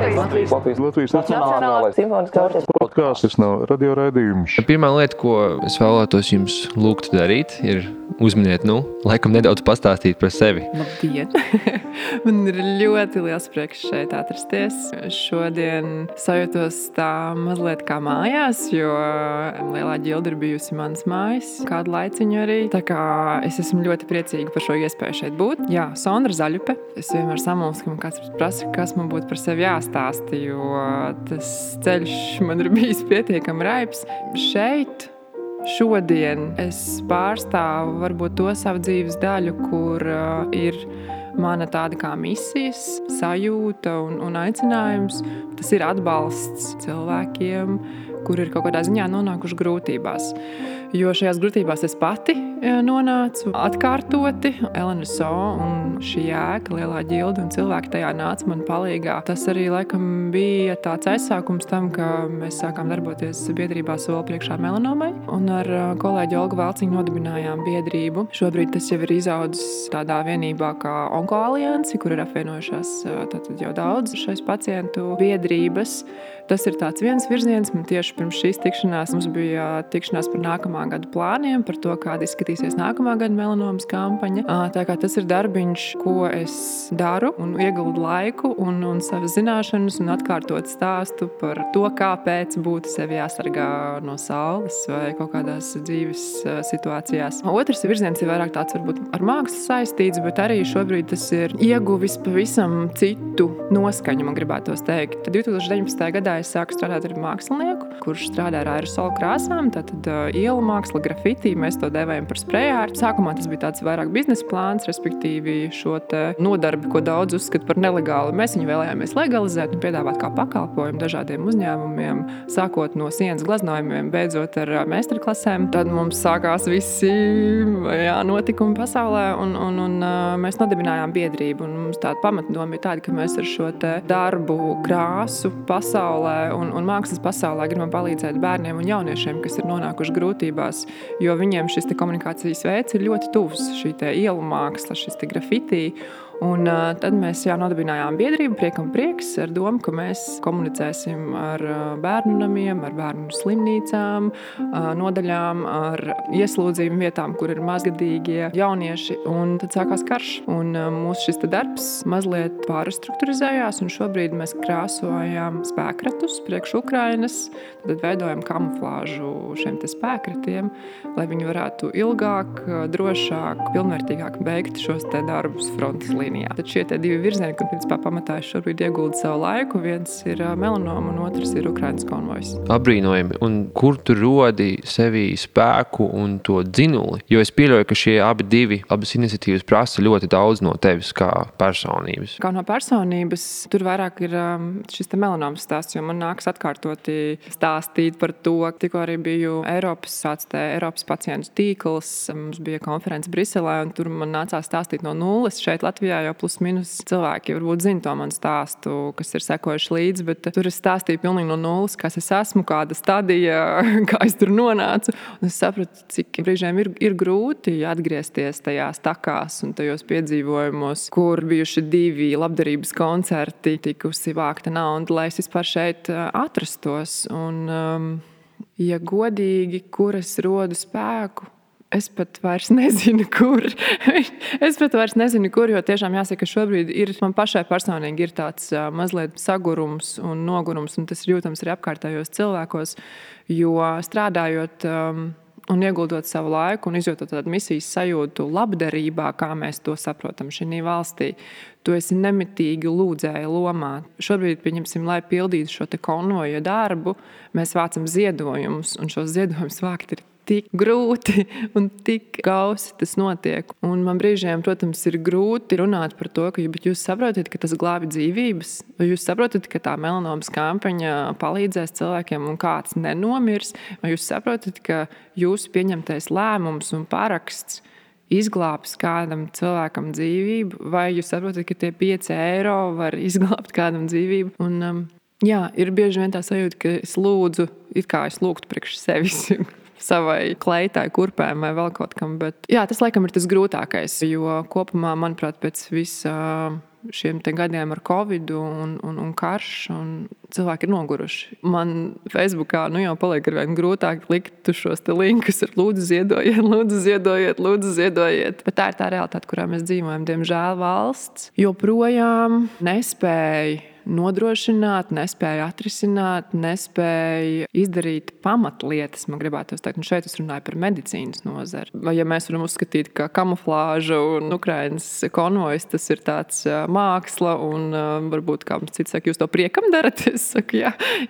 Latvijas Nacionālais simfoniskais orķestris. podkāsts nav radio raidījums. Pirmā lieta, ko es vēlētos jums lūgt darīt, ir uzminiet, laikam nedaudz pastāstīt par sevi. Labdien! Man ir ļoti liels prieks šeit atrasties. Šodien sajūtos tā mazliet kā mājās, jo Lielā Ģilde ir bijusi manas mājas kādu laiciņu arī. Tā kā es esmu ļoti priecīga par šo iespēju šeit būt. Jā, Sondra Zaļupe. Es vienmēr samulstu, ka kāds prasa, kas man būtu par sevi jāstāsta, jo tas ceļš man ir bijis pietiekami raips. Šeit šodien es pārstāvu varbūt to savu dzīves daļu, kur ir mana tāda kā misijas, sajūta un aicinājums. Tas ir atbalsts cilvēkiem, kur ir kaut kādā ziņā nonākuši grūtībās. Jo šajās grūtībās es pati nonācu atkārtoti. LNSO un šī ēka, Lielā Ģilde un cilvēki tajā nāca man palīgā. Tas arī laikam bija tāds aizsākums tam, ka mēs sākām darboties biedrībā Soli priekšā melanomai. Un ar kolēģi Olgu Valciņu nodibinājām biedrību. Šobrīd tas jau ir izaudzis tādā vienībā kā Onkoaliansi, kur ir apvienojušās tātad jau daudz šais pacientu biedrības. Tas ir tāds viens virziens. Man tieši pirms šīs tikšanās mums bija tikšanās par nākamā gada plāniem, par to, kāda izskatīsies nākamā gada melanomas kampaņa. Tā kā tas ir darbiņš, ko es daru un ieguldu laiku un savas zināšanas un atkārtot stāstu par to, kāpēc būtu sevi jāsargā no saules vai kaut kādās dzīves situācijās. Otrs virziens ir vairāk tāds varbūt ar mākslu saistīts, bet arī šobrīd tas ir ieguvis pavisam citu noskaņu, man gribētos teikt. Tad 2019. gadā es sāku strādāt ar mākslinieku, kurš strādā ar aerosolu krāsām, tātad ielu māksla, grafiti, mēs to devējam par sprejārtu. Sākumā tas bija tāds vairāk biznesa plāns, respektīvi šo te nodarbi, ko daudz uzskata par nelegālu. Mēs viņu vēlējāmies legalizēt un piedāvāt kā pakalpojumu dažādiem uzņēmumiem, sākot no sienas glaznojumiem, beidzot ar meistarklasēm. Tad mums sākās visi notikumi pasaulē un mēs nodibinājām biedrību. Un mums tāda pamatdoma bija tāda, ka mēs ar šo te darbu, krāsu pasaulē un mākslas pasaulē gribam palīdzēt bērniem un jauniešiem, kas ir nonākuši grūtībās, jo viņiem šis te komunikācijas veids ir ļoti tuvs, šī te ielu māksla, šis te grafiti. Un tad mēs nodibinājām biedrību Priekam prieks ar domu, ka mēs komunicēsim ar bērnu namiem, ar bērnu slimnīcām, nodaļām, ar ieslodzījumu vietām, kur ir mazgadīgie jaunieši. Un tad sākās karš. Un mūsu šis te darbs mazliet pārstruktūrizējās, un šobrīd mēs krāsojam spēkratus priekš Ukrainas, tad veidojam kamuflāžu šiem te spēkratiem, lai viņi varētu ilgāk, drošāk, pilnvērtīgāk beigt šos te darbus frontes līnijā. Tad šie te divi virzieni, kur principā pamatā es šobrīd ieguldu savu laiku, viens ir melanoma un otrs ir Ukrainas konvojs. Abrīnojami. Un kur tu rodi sevī spēku un to dzinuli? Jo es pieļauju, ka šie abas iniciatīvas prasa ļoti daudz no tevis kā personības. Kā no personības, tur vairāk ir šis te melanomas stāsts, jo man nāks atkārtoti stāstīt par to. Tikko arī biju Eiropas pacientu tīkls, mums bija konference Briselē, un tur man nācās stāstīt no nulles. Šeit Latvijā jau plus minus cilvēki varbūt zina to manu stāstu, kas ir sekojuši līdzi, bet tur es stāstīju pilnīgi no nulles, kas es esmu, kāda stadija, kā es tur nonācu. Un es sapratu, cik brīžiem ir grūti atgriezties tajās takās un tajos piedzīvojumos, kur bijuši 2 labdarības koncerti, tikusi vākta nauda, lai es vispār šeit atrastos. Un, ja godīgi, kur es rodu spēku, es pat vairs nezinu, kur. Jo tiešām jāsaka, ka šobrīd man pašai personīgi ir tāds mazliet sagurums un nogurums, un tas ir jūtams arī apkārtējos cilvēkos, jo strādājot un ieguldot savu laiku un izjūtot tādu misijas sajūtu labdarībā, kā mēs to saprotam šī valstī, tu esi nemitīgi lūdzēja lomā. Šobrīd, pieņemsim, lai pildītu šo te konvoja darbu, mēs vācam ziedojumus, un šos ziedojumus vākt ir tik grūti un tik gausi tas notiek. Un man brīžiem, protams, ir grūti runāt par to, bet jūs saprotat, ka tas glābi dzīvības, vai jūs saprotat, ka tā melanomas kampaņa palīdzēs cilvēkiem un kāds nenomirs, vai jūs saprotat, ka jūsu pieņemtais lēmums un paraksts izglābs kādam cilvēkam dzīvību, vai jūs saprotat, ka tie 5 eiro var izglābt kādam dzīvību. Un, ir bieži vien tā sajūta, ka es lūdzu, it kā es lūgtu priekš sevis, savai kleitai, kurpēm vai vēl kaut kam. Bet, tas laikam ir tas grūtākais, jo kopumā, manuprāt, pēc visa šiem gadiem ar Covid un karš, un cilvēki ir noguruši. Man Facebookā jau paliek arvien grūtāk likt šos linkus ar lūdzu ziedojiet, lūdzu ziedojiet, lūdzu ziedojiet. Bet tā ir tā realitāte, kurā mēs dzīvojam. Diemžēl valsts joprojām nespēja nodrošināt, nespēja atrisināt, nespēja izdarīt pamatlietas, man gribētu teikt. Un šeit es runāju par medicīnas nozari. Vai ja mēs varam uzskatīt, ka kamuflāža un Ukrainas konvojs, tas ir tāds māksla un varbūt, kā mums cits saka, jūs to priekam darat? Es saku,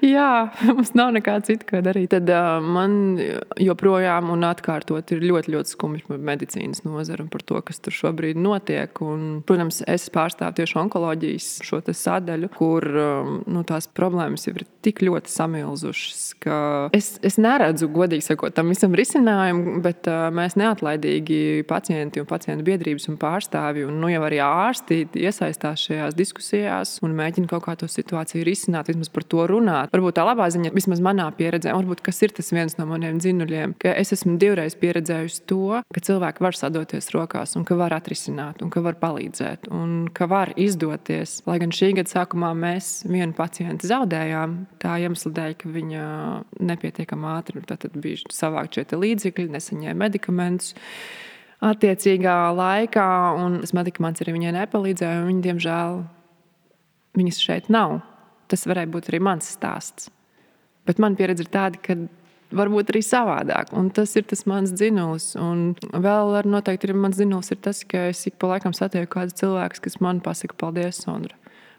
jā, mums nav nekā cita, ko darīt. Tad man joprojām un atkārtot ir ļoti, ļoti skumji par medicīnas nozari un par to, kas tur šobrīd notiek. Un, protams, es pārstāvu tieši onkoloģijas šo sadaļu, kur tās problēmas jau ir tik ļoti samilzušas, ka es neredzu, godīgi sakot, tam visam risinājumu, bet mēs neatlaidīgi pacienti un pacientu biedrības un pārstāvji un jau arī ārsti iesaistās šajās diskusijās un mēģina kaut kā to situāciju risināt, vismaz par to runāt. Varbūt tā labā ziņa, vismaz manā pieredzē, varbūt kas ir tas viens no maniem dzinuļiem, ka es esmu 2 reizes pieredzējusi to, ka cilvēki var sadoties rokās un ka var atrisināt un ka var palīdzēt un ka var izdoties. Lai gan šī gada sākumā mēs vienu pacientu zaudējām tā iemesla dēļ, ka viņa nepietiekami ātri tātad bija savākt šie līdzekļi, nesaņēma medikamentus attiecīgā laikā, un tas medikaments arī viņai nepalīdzēja, un viņa, diemžēl, viņas šeit nav. Tas varēja būt arī mans stāsts. Bet man pieredze ir tāda, ka varbūt arī savādāk, un tas ir tas mans dzinulis. Un vēl noteikti ir mans dzinulis ir tas, ka es ik pa laikam satieku kāds cilvēks, kas man pasaka, paldies, Sondra.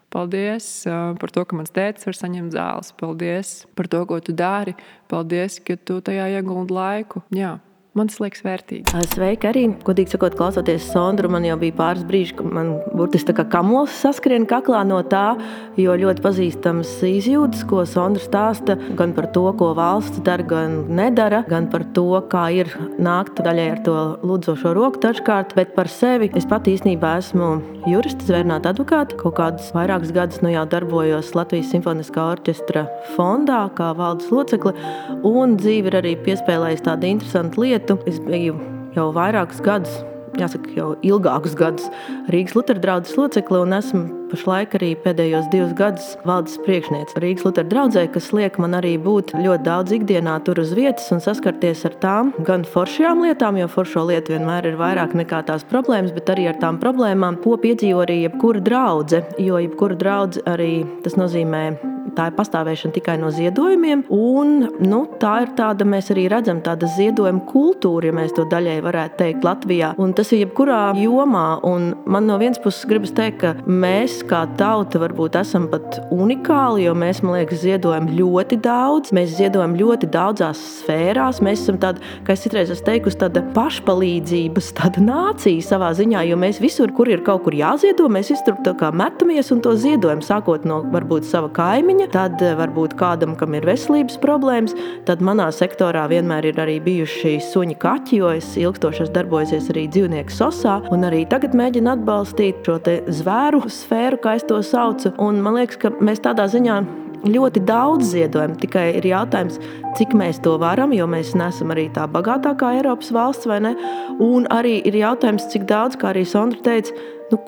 Paldies par to, ka mans tētis var saņemt zāles. Paldies par to, ko tu dari. Paldies, ka tu tajā ieguldi laiku. Jā. Man tas liekas vērtīgi. Sveiki arī. Godīgi sakot, klausoties Sondru, man jau bija pāris brīži, ka man burtiski tā kā kamols saskrien kaklā no tā, jo ļoti pazīstams izjūtas, ko Sondra stāsta, gan par to, ko valsts dara, gan nedara, gan par to, kā ir nākt daļai ar to lūdzošo roku tačkārt, bet par sevi. Es pat īstenībā esmu jurista, zvērnāta advokāta. Kaut kādus vairākus gadus jau darbojos Latvijas Simfoniskā orķestra fondā kā valdes locekle, un dzīve ir arī piespēlējusi tādu interesantu lietu. Es biju jau vairākus gadus, jāsaka jau ilgākus gadus, Rīgas Lutera draudzes locekle un esmu pašlaik arī pēdējos 2 gadus valdes priekšniece Rīgas Lutera draudzē, kas liek man arī būt ļoti daudz ikdienā tur uz vietas un saskarties ar tām gan foršajām lietām, jo foršo lietu vienmēr ir vairāk nekā tās problēmas, bet arī ar tām problēmām, ko piedzīvo arī jebkura draudze, jo jebkura draudze arī tas nozīmē, tā ir pastāvēšana tikai no ziedojumiem, un tā ir tāda, mēs arī redzam tāda ziedojuma kultūra, ja mēs to daļai varētu teikt Latvijā, un tas ir jebkurā jomā, un man no vienas puses gribas teikt, ka mēs kā tauta varbūt esam pat unikāli, jo mēs, man liekas, ziedojam ļoti daudz, mēs ziedojam ļoti daudzās sfērās, mēs esam tāda, kā es citreiz esmu teikusi, tāda pašpalīdzības, tāda nācija savā ziņā, jo mēs visur, kur ir kaut kur jāziedo, mēs visur tā kā metamies un to ziedojam, sākot no varbūt sava kaimiņa, tad varbūt kādam, kam ir veselības problēmas, tad manā sektorā vienmēr ir arī bijuši suņi kaķi, jo es ilgstoši esmu darbojusies arī dzīvnieku sosā, un arī tagad mēģinu atbalstīt šo te zvēru sfēru, kā es to saucu, un man liekas, ka mēs tādā ziņā ļoti daudz ziedojam, tikai ir jautājums, cik mēs to varam, jo mēs nesam arī tā bagātākā Eiropas valsts, vai ne? Un arī ir jautājums, cik daudz, kā arī Sondra teica,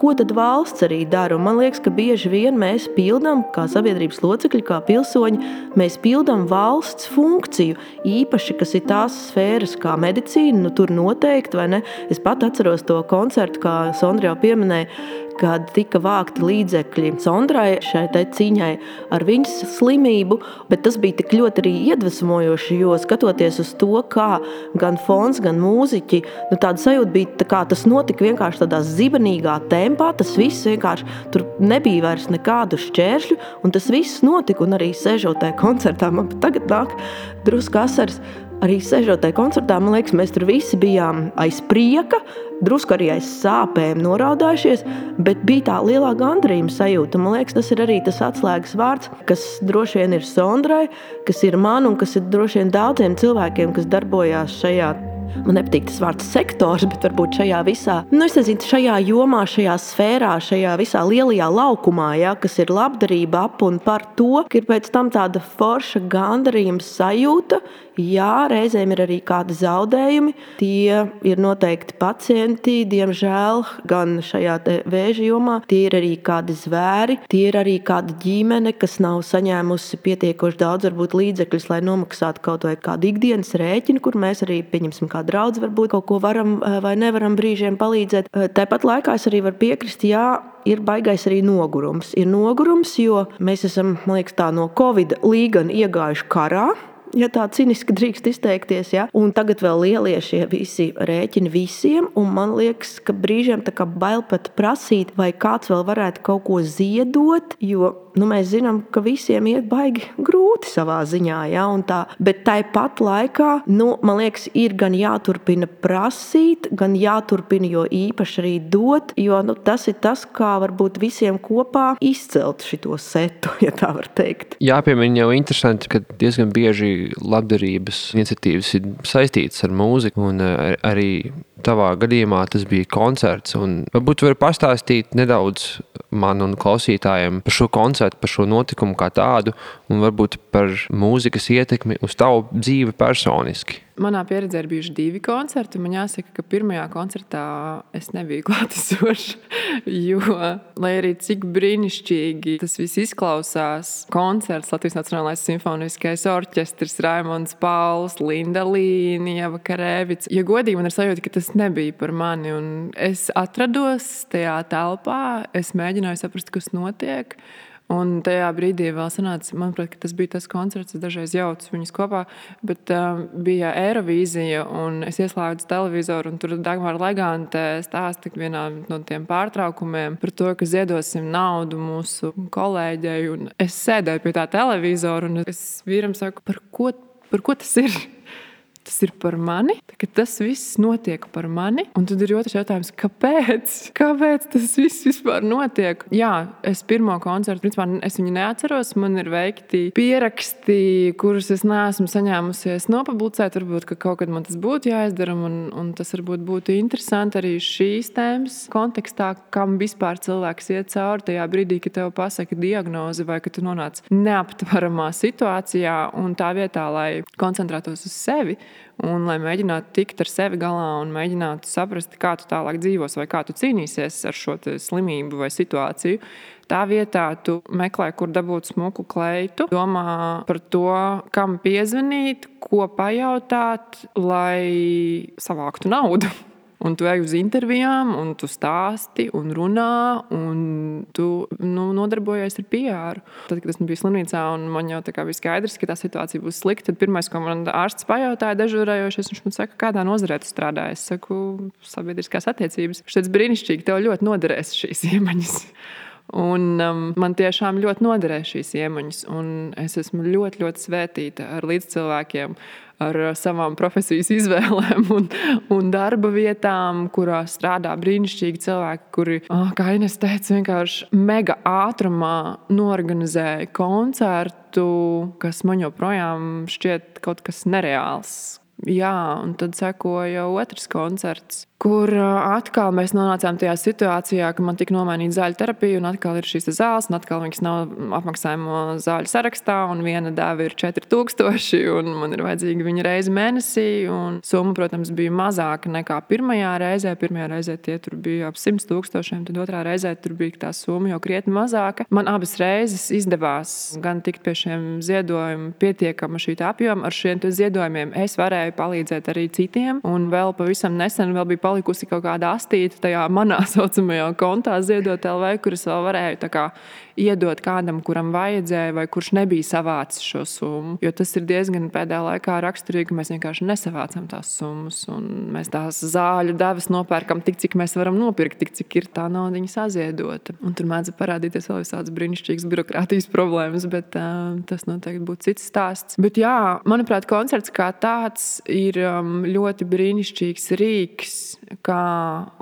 ko tad valsts arī dara? Un man liekas, ka bieži vien mēs pildam, kā sabiedrības locekļi, kā pilsoņi, mēs pildam valsts funkciju, īpaši, kas ir tās sfēras kā medicīna, tur noteikti, vai ne? Es pat atceros to koncertu, kā Sondra jau pieminēja, kad tika vākti līdzekļi Sondrai šai te cīņai ar viņas slimību, bet tas bija tik ļoti arī iedvesmojoši, jo skatoties uz to, kā gan fonds, gan mūziķi, tāda sajūta bija, tā kā tas notika vienkārši tādā zibenīgā tempā, tas viss vienkārši, tur nebija vairs nekādu šķēršļu, un tas viss notika, un arī sēžot tajā koncertā, man tagad nāk drusku asaras, arī sēžot tajā koncertā, man liekas, mēs tur visi bijām aiz prieka, drusku arī aiz sāpēm noraudājušies, bet bija tā lielā gandarījuma sajūta. Man liekas, tas ir arī tas atslēgas vārds, kas droši vien ir Sondrai, kas ir man un kas ir droši vien daudziem cilvēkiem, kas darbojās šajā, man nepatīk tas vārds sektors, bet varbūt šajā visā, šajā jomā, šajā sfērā, šajā visā lielajā laukumā, kas ir labdarība ap un par to, ka ir pēc tam tāda forša gandarījuma sajūta, Jā, reizēm ir arī kādi zaudējumi. Tie ir noteikti pacienti, diemžēl, gan šajā vēža jomā. Tie ir arī kādi zvēri, tie ir arī kāda ģimene, kas nav saņēmusi pietiekoši daudz varbūt līdzekļus, lai nomaksātu kaut vai kādu ikdienas rēķinu, kur mēs arī, pieņemsim, kā draudz, varbūt kaut ko varam vai nevaram brīžiem palīdzēt. Tāpat laikā es arī varu piekrist, jā, ir baigais arī nogurums. Ir nogurums, jo mēs esam, man liekas, tā no Covid līgana iegājuši karā. Ja tā ciniski drīkst izteikties, ja? Un tagad vēl lielie šie visi rēķini visiem, un man liekas, ka brīžiem tā kā bail pat prasīt, vai kāds vēl varētu kaut ko ziedot, jo mēs zinām, ka visiem iet baigi grūti savā ziņā, ja? Un tā, bet tāpat laikā, man liekas, ir gan jāturpina prasīt, gan jāturpina jo īpaši arī dot, jo tas ir tas, kā varbūt visiem kopā izcelt šito setu, ja tā var teikt. Jāpiemina jau interesanti, ka diezgan bieži labdarības iniciatīvas ir saistītas ar mūziku, un arī tavā gadījumā tas bija koncerts. Un varbūt var pastāstīt nedaudz man un klausītājiem par šo koncertu, par šo notikumu kā tādu, un varbūt par mūzikas ietekmi uz tavu dzīvi personiski. Manā pieredzē ir bijuši 2 koncerti. Man jāsaka, ka pirmajā koncertā es nebiju klātesoša, jo, lai arī cik brīnišķīgi tas viss izklausās, koncerts Latvijas Nacionālais simfoniskais orķestris, Raimonds Pauls, Linda Līne, Ieva Karēvic. Ja godīgi, man ir sajūta, ka tas nebija par mani, un es atrados tajā telpā, es mēģināju saprast, kas notiek. Un tajā brīdī vēl sanāca, manuprāt, ka tas bija tas koncerts, es dažreiz jaucu viņus kopā, bet bija Eirovīzija, un es ieslēdzu televizoru, un tur Dagmara Legante stāsta vienā no tiem pārtraukumiem par to, ka ziedosim naudu mūsu kolēģei, un es sēdēju pie tā televizoru, un es vīram saku, par ko tas ir? Tas ir par mani, tas viss notiek par mani. Un tad ir otrs jautājums, kāpēc? Kāpēc tas viss vispār notiek? Jā, es pirmo koncertu, principā, es viņu neatceros. Man ir veikti pieraksti, kurus es neesmu saņēmusies nopublicēt. Varbūt, ka kaut kad man tas būtu jāizdara, un tas varbūt būtu interesanti arī šīs tēmas kontekstā, kam vispār cilvēks iet cauri tajā brīdī, kad tev pasaka diagnozi vai ka tu nonāc neaptveramā situācijā, un tā vietā, lai koncentrētos uz sevi, un lai mēģinātu tikt ar sevi galā un mēģinātu saprast, kā tu tālāk dzīvos vai kā tu cīnīsies ar šo slimību vai situāciju. Tā vietā tu meklē, kur dabūt smuku kleitu, domā par to, kam piezvanīt, ko pajautāt, lai savāktu naudu. Un tu ej uz intervijām, un tu stāsti, un runā, un tu nodarbojies ar PR. Tad, kad es biju slimnīcā, un man jau tā kā bija skaidrs, ka tā situācija būs slikta, tad pirmais, ko man ārsts pajautāja, dežurējošies, viņš man saka, kādā nozarē tu strādā? Es saku, sabiedriskās attiecības. Viņš teica, brīnišķīgi, tev ļoti noderēs šīs iemaņas. Un man tiešām ļoti noderēs šīs iemaņas, un es esmu ļoti, ļoti svētīta ar līdzcilvēkiem, ar savām profesijas izvēlēm un darba vietām, kurās strādā brīnišķīgi cilvēki, kuri, kā Ines teica, vienkārši mega ātrumā norganizēja koncertu, kas man joprojām šķiet kaut kas nereāls. Jā, un tad sekoja otrs koncerts, kur atkal mēs nonācām tajā situācijā, ka man tika nomainīta zāļu terapija, un atkal ir šīs zāles, un atkal viņas nav apmaksājamo zāļu sarakstā, un viena dēva ir 4000, un man ir vajadzīga viņa reizi mēnesī, un summa, protams, bija mazāka nekā pirmajā reizē. Pirmajā reizē tie tur bija ap 100 000, tad otrā reizē tur bija tā summa jau krietni mazāka. Man abas reizes izdevās gan tikt pie šiem ziedojumiem pietiekama šī apjoma. Ar šiem ziedojumiem es varēju palīdzēt arī citiem, un vēl pavisam nesen vēl bija palikusi kaut kāda astīte tajā manā saucamajā kontā ziedot LV, kuras vēl varēju tā kā iedot kādam, kuram vajadzēja vai kurš nebija savācis šo summu. Jo tas ir diezgan pēdējā laikā raksturīgi, ka mēs vienkārši nesavācam tās summas, un mēs tās zāļu devas nopērkam tik, cik mēs varam nopirkt, tik, cik ir tā naudiņa saziedota. Un tur mēdz parādīties vēl visādas brīnišķīgas birokrātijas problēmas, bet tas noteikti būtu cits stāsts. Bet jā, manuprāt, koncerts kā tāds ir ļoti brīnišķīgs rīks, kā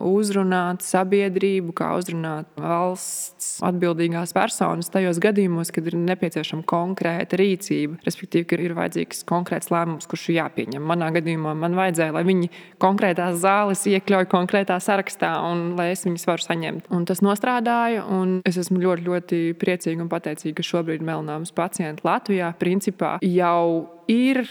uzrunāt sabiedrību, kā uzrunāt valsts atbildīgās personas tajos gadījumos, kad ir nepieciešama konkrēta rīcība, respektīvi, ka ir vajadzīgs konkrēts lēmums, kurš ir jāpieņem. Manā gadījumā man vajadzēja, lai viņi konkrētās zāles iekļauj konkrētā sarakstā un lai es viņas varu saņemt. Un tas nostrādāja, un es esmu ļoti, ļoti priecīga un pateicīga, ka šobrīd melanāmas pacienti Latvijā principā jau ir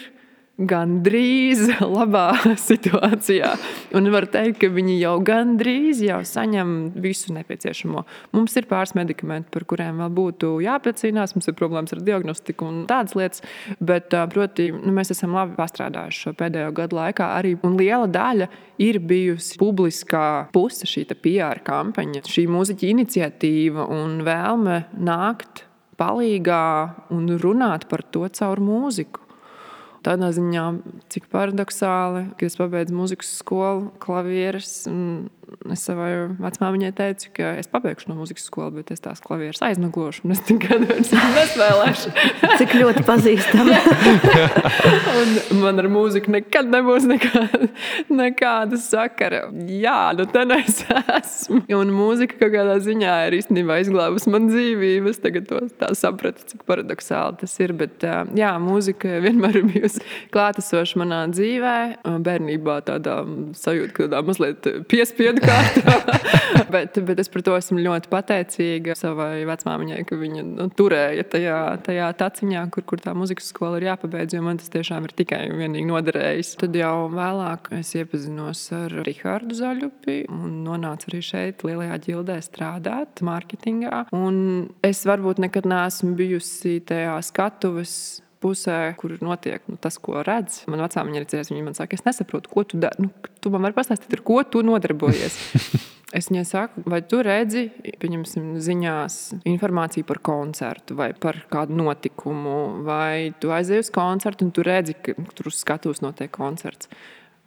gandrīz labā situācijā. Un var teikt, ka viņi jau gandrīz saņem visu nepieciešamo. Mums ir pāris medikamenti, par kuriem vēl būtu jāprecīnās. Mums ir problēmas ar diagnostiku un tādas lietas. Bet, proti, mēs esam labi pastrādājuši šo pēdējo gadu laikā arī. Un liela daļa ir bijusi publiskā puse, šī PR kampaņa, šī mūziķa iniciatīva un vēlme nākt palīgā un runāt par to caur mūziku. Tādā ziņā, cik paradoxāli, kad es pabeidzu mūzikas skolu, klavieres, es savai vecmāmiņai teicu, ka es pabeigšu no mūzikas skolu, bet es tās klavieres aiznoglošu, un es nekad vairs nespēlēšu. Cik ļoti pazīstami. Un man ar mūziku nekad nebūs nekāda sakara. Jā, te es esmu. Un mūzika kaut kādā ziņā ir īstenībā izglābusi man dzīvību. Es tagad to tā sapratu, cik paradoxāli tas ir. Bet jā, mūzika vienmēr ir bijusi klātesoša manā dzīvē. Bērnībā tādā sajūta, ka tādā mazliet piespiedu kārtā. bet es par to esmu ļoti pateicīga savai vecmāmiņai, ka viņa turēja tajā taciņā, kur tā mūzikas skola ir jāpabeidz, jo man tas tiešām ir tikai vienīgi noderējis. Tad jau vēlāk es iepazinos ar Rihardu Zaļupi un nonācu arī šeit Lielajā ģildē strādāt mārketingā. Un es varbūt nekad neesmu bijusi tajā skatuves pusē, kur notiek tas, ko redz. Man vecāmiņa ir cieši, viņa man saka, es nesaprotu, ko tu dari. Tu man vari pastāstīt, ar ko tu nodarbojies. Es viņai saku, vai tu redzi, pieņemsim, ziņās informāciju par koncertu vai par kādu notikumu, vai tu aizej uz koncertu un tu redzi, ka tur uz skatuves notiek koncerts.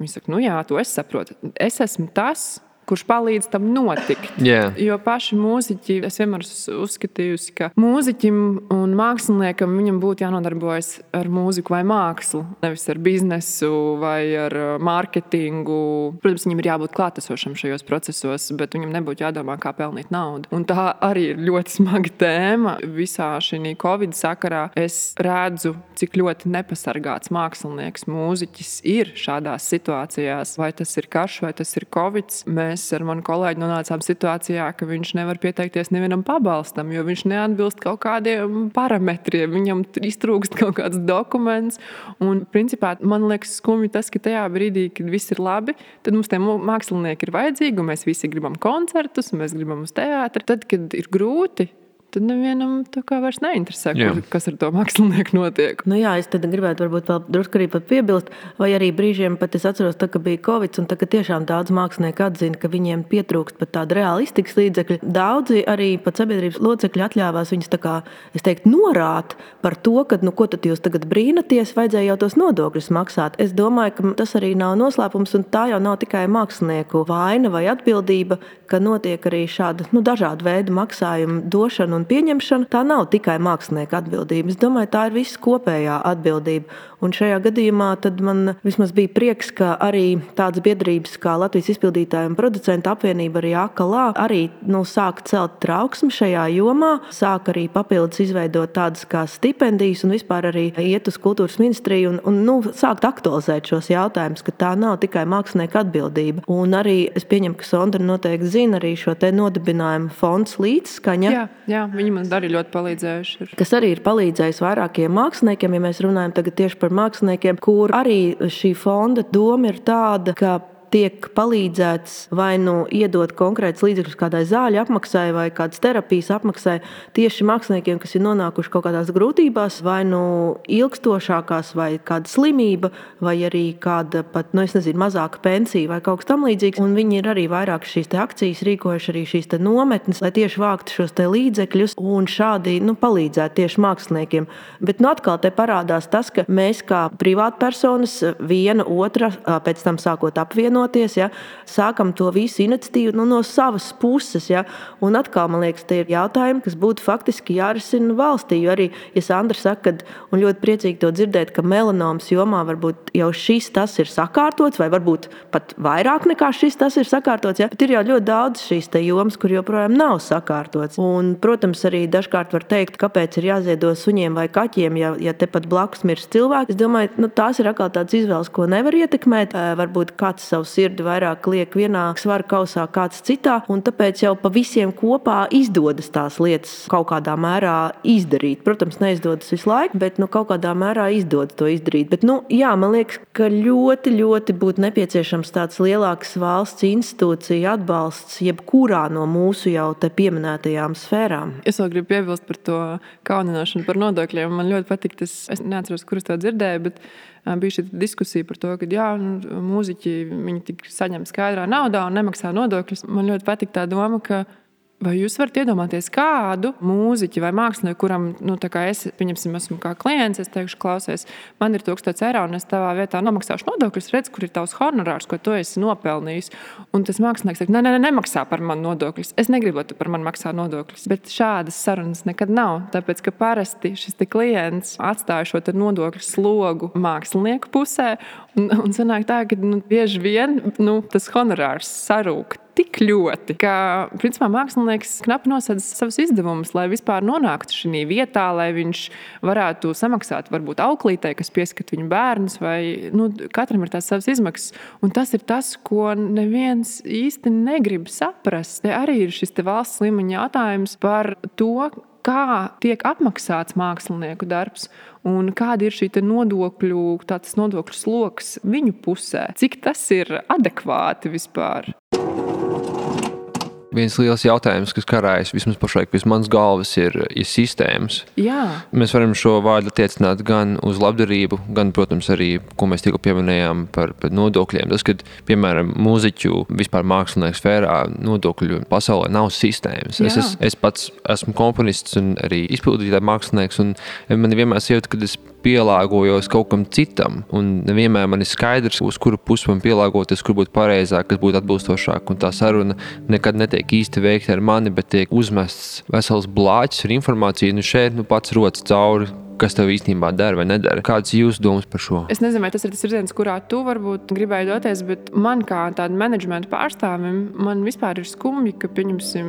Viņa saka, jā, to es saprotu. Es esmu tas, kurš palīdz tam notikt. Yeah. Jo paši mūziķi, es vienmēr uzskatījusi, ka mūziķim un māksliniekam viņam būtu jānodarbojas ar mūziku vai mākslu, nevis ar biznesu vai ar mārketingu. Protams, viņam ir jābūt klātesošam šajos procesos, bet viņam nebūtu jādomā, kā pelnīt naudu. Un tā arī ir ļoti smaga tēma. Visā šī Covid sakarā es redzu, cik ļoti nepasargāts mākslinieks, mūziķis ir šādās situācijās. Vai tas ir karš, vai tas ir Covid. Mēs ar manu kolēģi nonācām situācijā, ka viņš nevar pieteikties nevienam pabalstam, jo viņš neatbilst kaut kādiem parametriem. Viņam iztrūkst kaut kāds dokuments. Un, principā, man liekas skumji tas, ka tajā brīdī, kad viss ir labi, tad mums tie mākslinieki ir vajadzīgi, un mēs visi gribam koncertus, un mēs gribam uz teātri. Tad, kad ir grūti, tad nevienam tā kā vairs neinteresē, kas ar to mākslinieku notiek. Jā, es tad gribētu varbūt vēl drusku arī pat piebilst, vai arī brīžiem pat es atceros, ka bija Covid, un tā, ka tiešām daudz mākslinieku atzina, ka viņiem pietrūkst pat tāda realistikas līdzekļi. Daudzi arī pat sabiedrības locekļi atļāvās viņus tā kā, es teiktu, norāt par to, ka, ko tad jūs tagad brīnaties, vajadzēja jau tos nodokļus maksāt. Es domāju, ka tas arī nav noslēpums, un tā jau nav tikai mākslinieku vaina vai atbildība, ka notiek arī šāda, dažāda veida maksājuma došana un pieņemšana. Tā nav tikai mākslinieka atbildība. Es domāju, tā ir visa kopējā atbildība. Un šajā gadījumā tad man vismaz bija prieks, ka arī tādas biedrības kā Latvijas izpildītāju un producentu apvienība arī AKLā arī sāk celt trauksmi šajā jomā, sāk arī papildus izveidot tādas kā stipendijas un vispār arī iet uz kultūras ministriju un sākt aktualizēt šos jautājumus, ka tā nav tikai mākslinieka atbildība. Un arī es pieņemu, ka Sondra noteikti zina arī šo te nodibinājumu fonds Līdzskaņa. Jā, viņi man arī ļoti palīdzējuši. Kas arī ir palīdzējis vairākiem māksliniekiem, ja mēs runājam tagad tieši par māksliniekiem, kur arī šī fonda doma ir tāda, ka tiek palīdzēts vai iedot konkrēts līdzekļus kādai zāļu apmaksai vai kādas terapijas apmaksai tieši māksliniekiem, kas ir nonākuši kaut kādās grūtībās, vai ilgstošākās, vai kāda slimība, vai arī kāda pat, mazāka pensija vai kaut kas tam līdzīgs. Un viņi ir arī vairāk šīs te akcijas rīkojuši, arī šīs te nometnes, lai tieši vāktu šos te līdzekļus un šādi palīdzētu tieši māksliniekiem. Bet atkal te parādās tas, ka mēs kā privātpersonas viena otra, pēc tam sākot apvienot, sākam to visu iniciatīvu no savas puses. Un atkal, man liekas, tie ir jautājumi, kas būtu faktiski jārisina valstī. Jo arī, ja Sandra saka, un ļoti priecīgi to dzirdēt, ka melanomas jomā varbūt jau tas ir sakārtots, vai varbūt pat vairāk nekā tas ir sakārtots, bet ir jau ļoti daudz šīs te jomas, kur joprojām nav sakārtots. Un, protams, arī dažkārt var teikt, kāpēc ir jāziedo suņiem vai kaķiem, ja tepat blakus mirst cilvēki. Es domāju, tās ir atkal tādas izvēles, ko nevar ietekmēt. Varbūt kāds savus sirdi vairāk liek vienā svara kausā, kāds citā, un tāpēc jau pa visiem kopā izdodas tās lietas kaut kādā mērā izdarīt. Protams, neizdodas visu laiku, bet kaut kādā mērā izdodas to izdarīt. Bet, jā, man liekas, ka ļoti, ļoti būtu nepieciešams tāds lielāks valsts institūcija atbalsts jebkurā no mūsu jau te pieminētajām sfērām. Es vēl gribu piebilst par to kaunināšanu par nodokļiem. Man ļoti patīk tas, es neatceros, kur es to dzirdēju, bet bija šī diskusija par to, ka mūziķi viņi tik saņem skaidrā naudā un nemaksā nodokļus. Man ļoti patīk tā doma, ka vai jūs varat iedomāties kādu mūziķi vai mākslinieku, kuram, tā kā es, pieņemsim, esmu kā klients, es teikšu, klausies, man ir 1000 eiro un es tavā vietā nomaksāšu nodokļus, redz, kur ir tavs honorārs, ko tu esi nopelnījis. Un tas mākslinieks teiks, nemaksā par mani nodokļus. Es negribu, lai tu par mani maksā nodokļus. Bet šādas sarunas nekad nav, tāpēc, ka parasti šis te klients atstāja šo te nodokļu slogu mākslinieku pusē un sanāk tā, ka bieži vien tas honorārs sarūk tik ļoti, ka principā mākslinieks knapi nosedz savus izdevumus, lai vispār nonāktu šī vietā, lai viņš varētu samaksāt varbūt auklītei, kas pieskat viņu bērnus, vai katram ir tās savas izmaksas. Un tas ir tas, ko neviens īsti negrib saprast. Te arī ir šis te valsts līmeņa jautājums par to, kā tiek apmaksāts mākslinieku darbs un kāda ir šī nodokļu sloks viņu pusē. Cik tas ir adekvāti vispār? Viens liels jautājums, kas karājas vismaz pašlaik pie manas galvas, ir sistēmas. Jā. Mēs varam šo vārdu attiecināt gan uz labdarību, gan, protams, arī, ko mēs tikko pieminējām par nodokļiem. Tas, kad, piemēram, mūziķu, vispār mākslinieku sfērā nodokļu pasaulē nav sistēmas. Es pats esmu komponists un arī izpildītāja mākslinieks, un man vienmēr sajūta, kad es pielāgojos kaut kam citam, un nevienmēr man ir skaidrs, uz kuru pusi man pielāgoties, kur būtu pareizāk, kas būtu atbilstošāk, un tā saruna nekad netiek īsti veikta ar mani, bet tiek uzmests vesels blāķis ar informāciju, šeit pats rodas cauri, kas tev īstenībā dara vai nedara. Kādas ir jūsu domas par šo? Es nezinu, vai tas ir tas virziens, kurā tu varbūt gribēji doties, bet man kā tāda menedžmenta pārstāvim, man vispār ir skumji, ka, pieņemsim,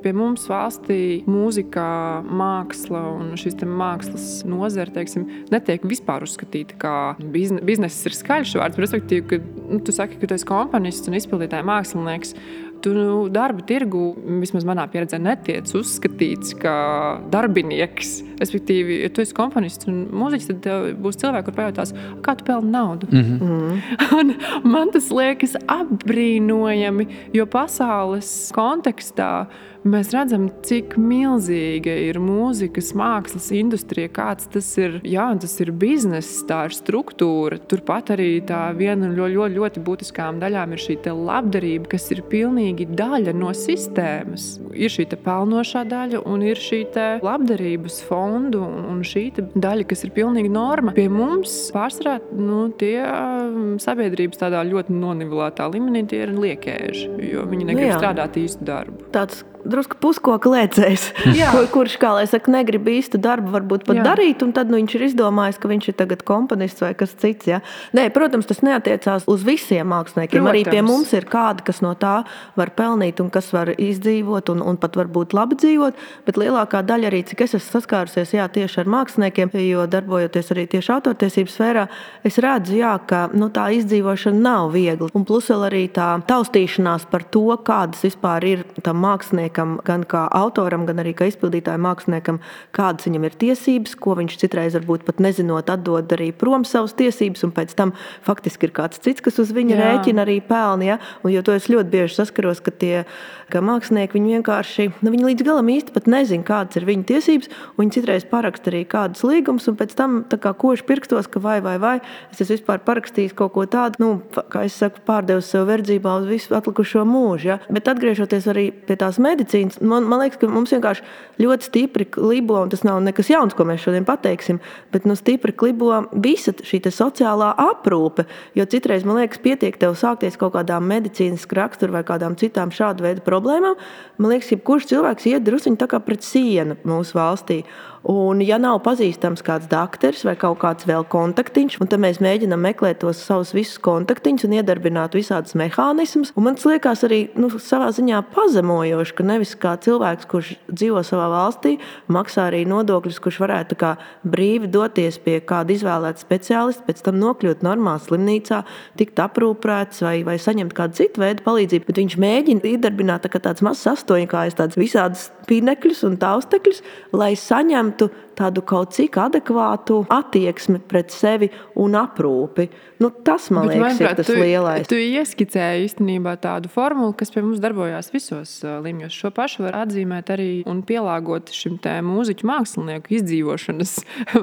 pie mums valstī mūzika, māksla un šīs mākslas nozara, netiek vispār uzskatīta kā bizness ir skaļš vārds, respektīvi, ka tu saki, ka tu esi komponists un izpildītāja mākslinieks. Tu darba tirgu, vismaz manā pieredzē, netiec uzskatīts kā darbinieks. Respektīvi, ja tu esi komponists un mūziķis, tad tev būs cilvēki, kur pajautās, kā tu pelni naudu. Un man tas liekas apbrīnojami, jo pasaules kontekstā mēs redzam, cik milzīga ir mūzikas, mākslas industrija, kāds tas ir. Jā, tas ir bizness, tā ir struktūra. Turpat arī tā viena no ļoti būtiskām daļām ir šī labdarība, kas ir pilnīgi daļa no sistēmas. Ir šī pelnošā daļa un ir šī labdarības fondu un šī daļa, kas ir pilnīgi norma. Pie mums pārsvarā tie sabiedrības tādā ļoti nonivelētā līmenī tie ir liekēži, jo viņi negrib strādāt īstu darbu. Tāds drusku puskoka lēcējs, kurš, kā lai saka, negrib īstu darbu varbūt pat darīt, un tad viņš ir izdomājis, ka viņš ir tagad komponists vai kas cits. Ja? Nē, protams, tas neatiecās uz visiem māksliniekiem. Protams. Arī pie mums ir kādi, kas no tā var pelnīt un kas var izdzīvot un pat varbūt labi dzīvot, bet lielākā daļa arī, cik es esmu saskārusies tieši ar māksliniekiem, jo darbojoties arī tieši autortiesības sfērā, es redzu, ka tā izdzīvošana nav viegli. Un plus vēl arī tā taustīšanās par to, kādas vispār ir tam māksliniekam, gan kā autoram, gan arī kā izpildītāju māksliniekam, kādas viņam ir tiesības, ko viņš citreiz varbūt pat nezinot atdod arī prom savas tiesības, un pēc tam faktiski ir kāds cits, kas uz viņa rēķina arī pelni. Ja? Un jo to es ļoti bieži saskaros, ka mākslinieki viņi vienkārši, viņi līdz galam īsti pat nezin, kādas ir viņa tiesības, un viņi citreiz paraksta arī kādas līgumus, un pēc tam tā kā koši pirkstos, ka vai, es esmu vispār parakstījis kaut ko tādu, kā es saku, pārdevu sev verdzībā uz visu atlikušo mūžu. Ja? Bet atgriežoties arī pie tās medicīnas, man liekas, ka mums vienkārši ļoti stipri klibo, un tas nav nekas jauns, ko mēs šodien pateiksim, bet stipri klibo visa šī sociālā aprūpe, jo citreiz, man liekas, pietiek tev sākties kaut kādām medicīnas rakstura vai kādām citām šādu veidu problēmām. Man liekas, jebkurš cilvēks iet drusciņi tā kā pret sienu mūsu valstī. Un, ja nav pazīstams kāds dakteris vai kaut kāds vēl kontaktiņš, un tad mēs mēģinām meklēt tos savus visus kontaktiņus un iedarbināt visādus mehānismus. Un man liekas arī savā ziņā pazemojoši, ka nevis kā cilvēks, kurš dzīvo savā valstī, maksā arī nodokļus, kurš varētu kā brīvi doties pie kāda izvēlēta speciālista, pēc tam nokļūt normāli slimnīcā, tikt aprūpēts vai saņemt kādu citu veidu palīdzību. Bet viņš mēģina iedarbināt tāds mazs astoņkājs, tāds visādas pinekļus un taustekļus, lai saņemtu tādu kaut cik adekvātu attieksmi pret sevi un aprūpi. Tas, man liekas, ir tas lielais. Tu ieskicēji īstenībā tādu formulu, kas pie mums darbojās visos līmeņos. Šo pašu var atzīmēt arī un pielāgot šim te mūziķu mākslinieku izdzīvošanas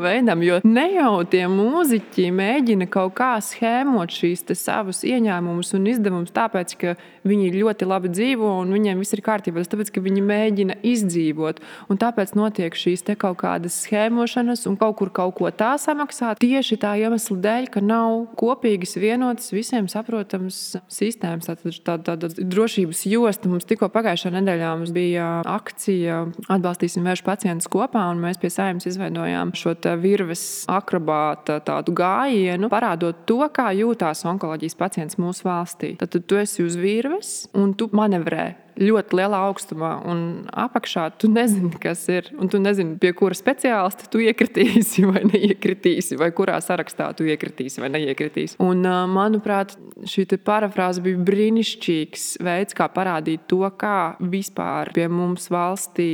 veidam, jo ne jau tie mūziķi mēģina kaut kā schēmot šīs te savus ieņēmumus un izdevumus tāpēc, ka viņi ļoti labi dzīvo un viņiem viss ir kārtībā. Tas tāpēc, ka viņi mēģina izdzīvot. Un tāpēc notiek šīs te kaut kādas schēmošanas un kaut ko tā samaksāt. Tieši tā iemesla dēļ, ka nav kopīgas vienotas visiem saprotams sistēmas. Tāda drošības josta. Mums tikko pagājušā nedēļā mums bija akcija Atbalstīsim vēža pacientus kopā, un mēs pie Saeimas izveidojām šo te virves akrobāta tādu gājienu, parādot to, kā jūtās onkoloģijas pacients mūsu valstī. Tad tu esi uz virves un tu manevrē ļoti lielā augstumā, un apakšā tu nezini, kas ir, un tu nezini, pie kura speciālista tu iekritīsi vai neiekritīsi, vai kurā sarakstā tu iekritīsi vai neiekritīsi. Un, manuprāt, šī te parafrāze bija brīnišķīgs veids, kā parādīt to, kā vispār pie mums valstī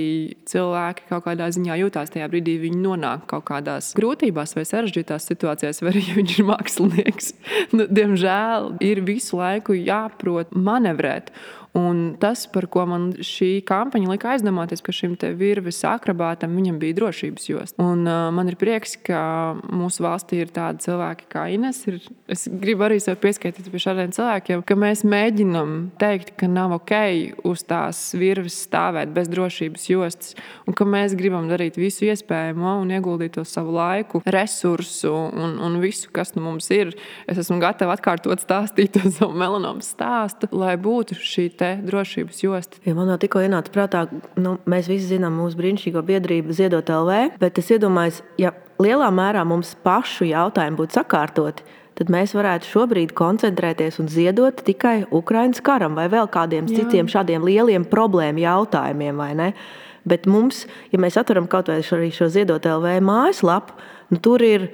cilvēki kaut kādā ziņā jūtās tajā brīdī, viņi nonāk kaut kādās grūtībās vai sarežģītās situācijās, vai arī, ja viņš ir mākslinieks. Diemžēl ir visu laiku jāprot manevrēt. Un tas, par ko man šī kampaņa lika aizdomāties, ka šim te virves akrobātam viņam bija drošības josta. Un man ir prieks, ka mūsu valstī ir tādi cilvēki kā Ines. Es gribu arī sev pieskaitīt pie šādiem cilvēkiem, ka mēs mēģinam teikt, ka nav ok uz tās virves stāvēt bez drošības jostas, un ka mēs gribam darīt visu iespējamo un ieguldīt to savu laiku, resursu un visu, kas mums ir. Es esmu gatava atkārtot stāstīt to savu melanomu stāstu, lai būtu šī te drošības josta. Ja man tikko ienāca prātā, mēs visi zinām mūsu brīnišķīgo biedrību Ziedot LV, bet es iedomājos, ja lielā mērā mums pašu jautājumi būtu sakārtoti, tad mēs varētu šobrīd koncentrēties un ziedot tikai Ukrainas karam vai vēl kādiem citiem šādiem lieliem problēmu jautājumiem, vai ne? Bet mums, ja mēs atveram kaut vai arī šo Ziedot LV mājaslapu, tur ir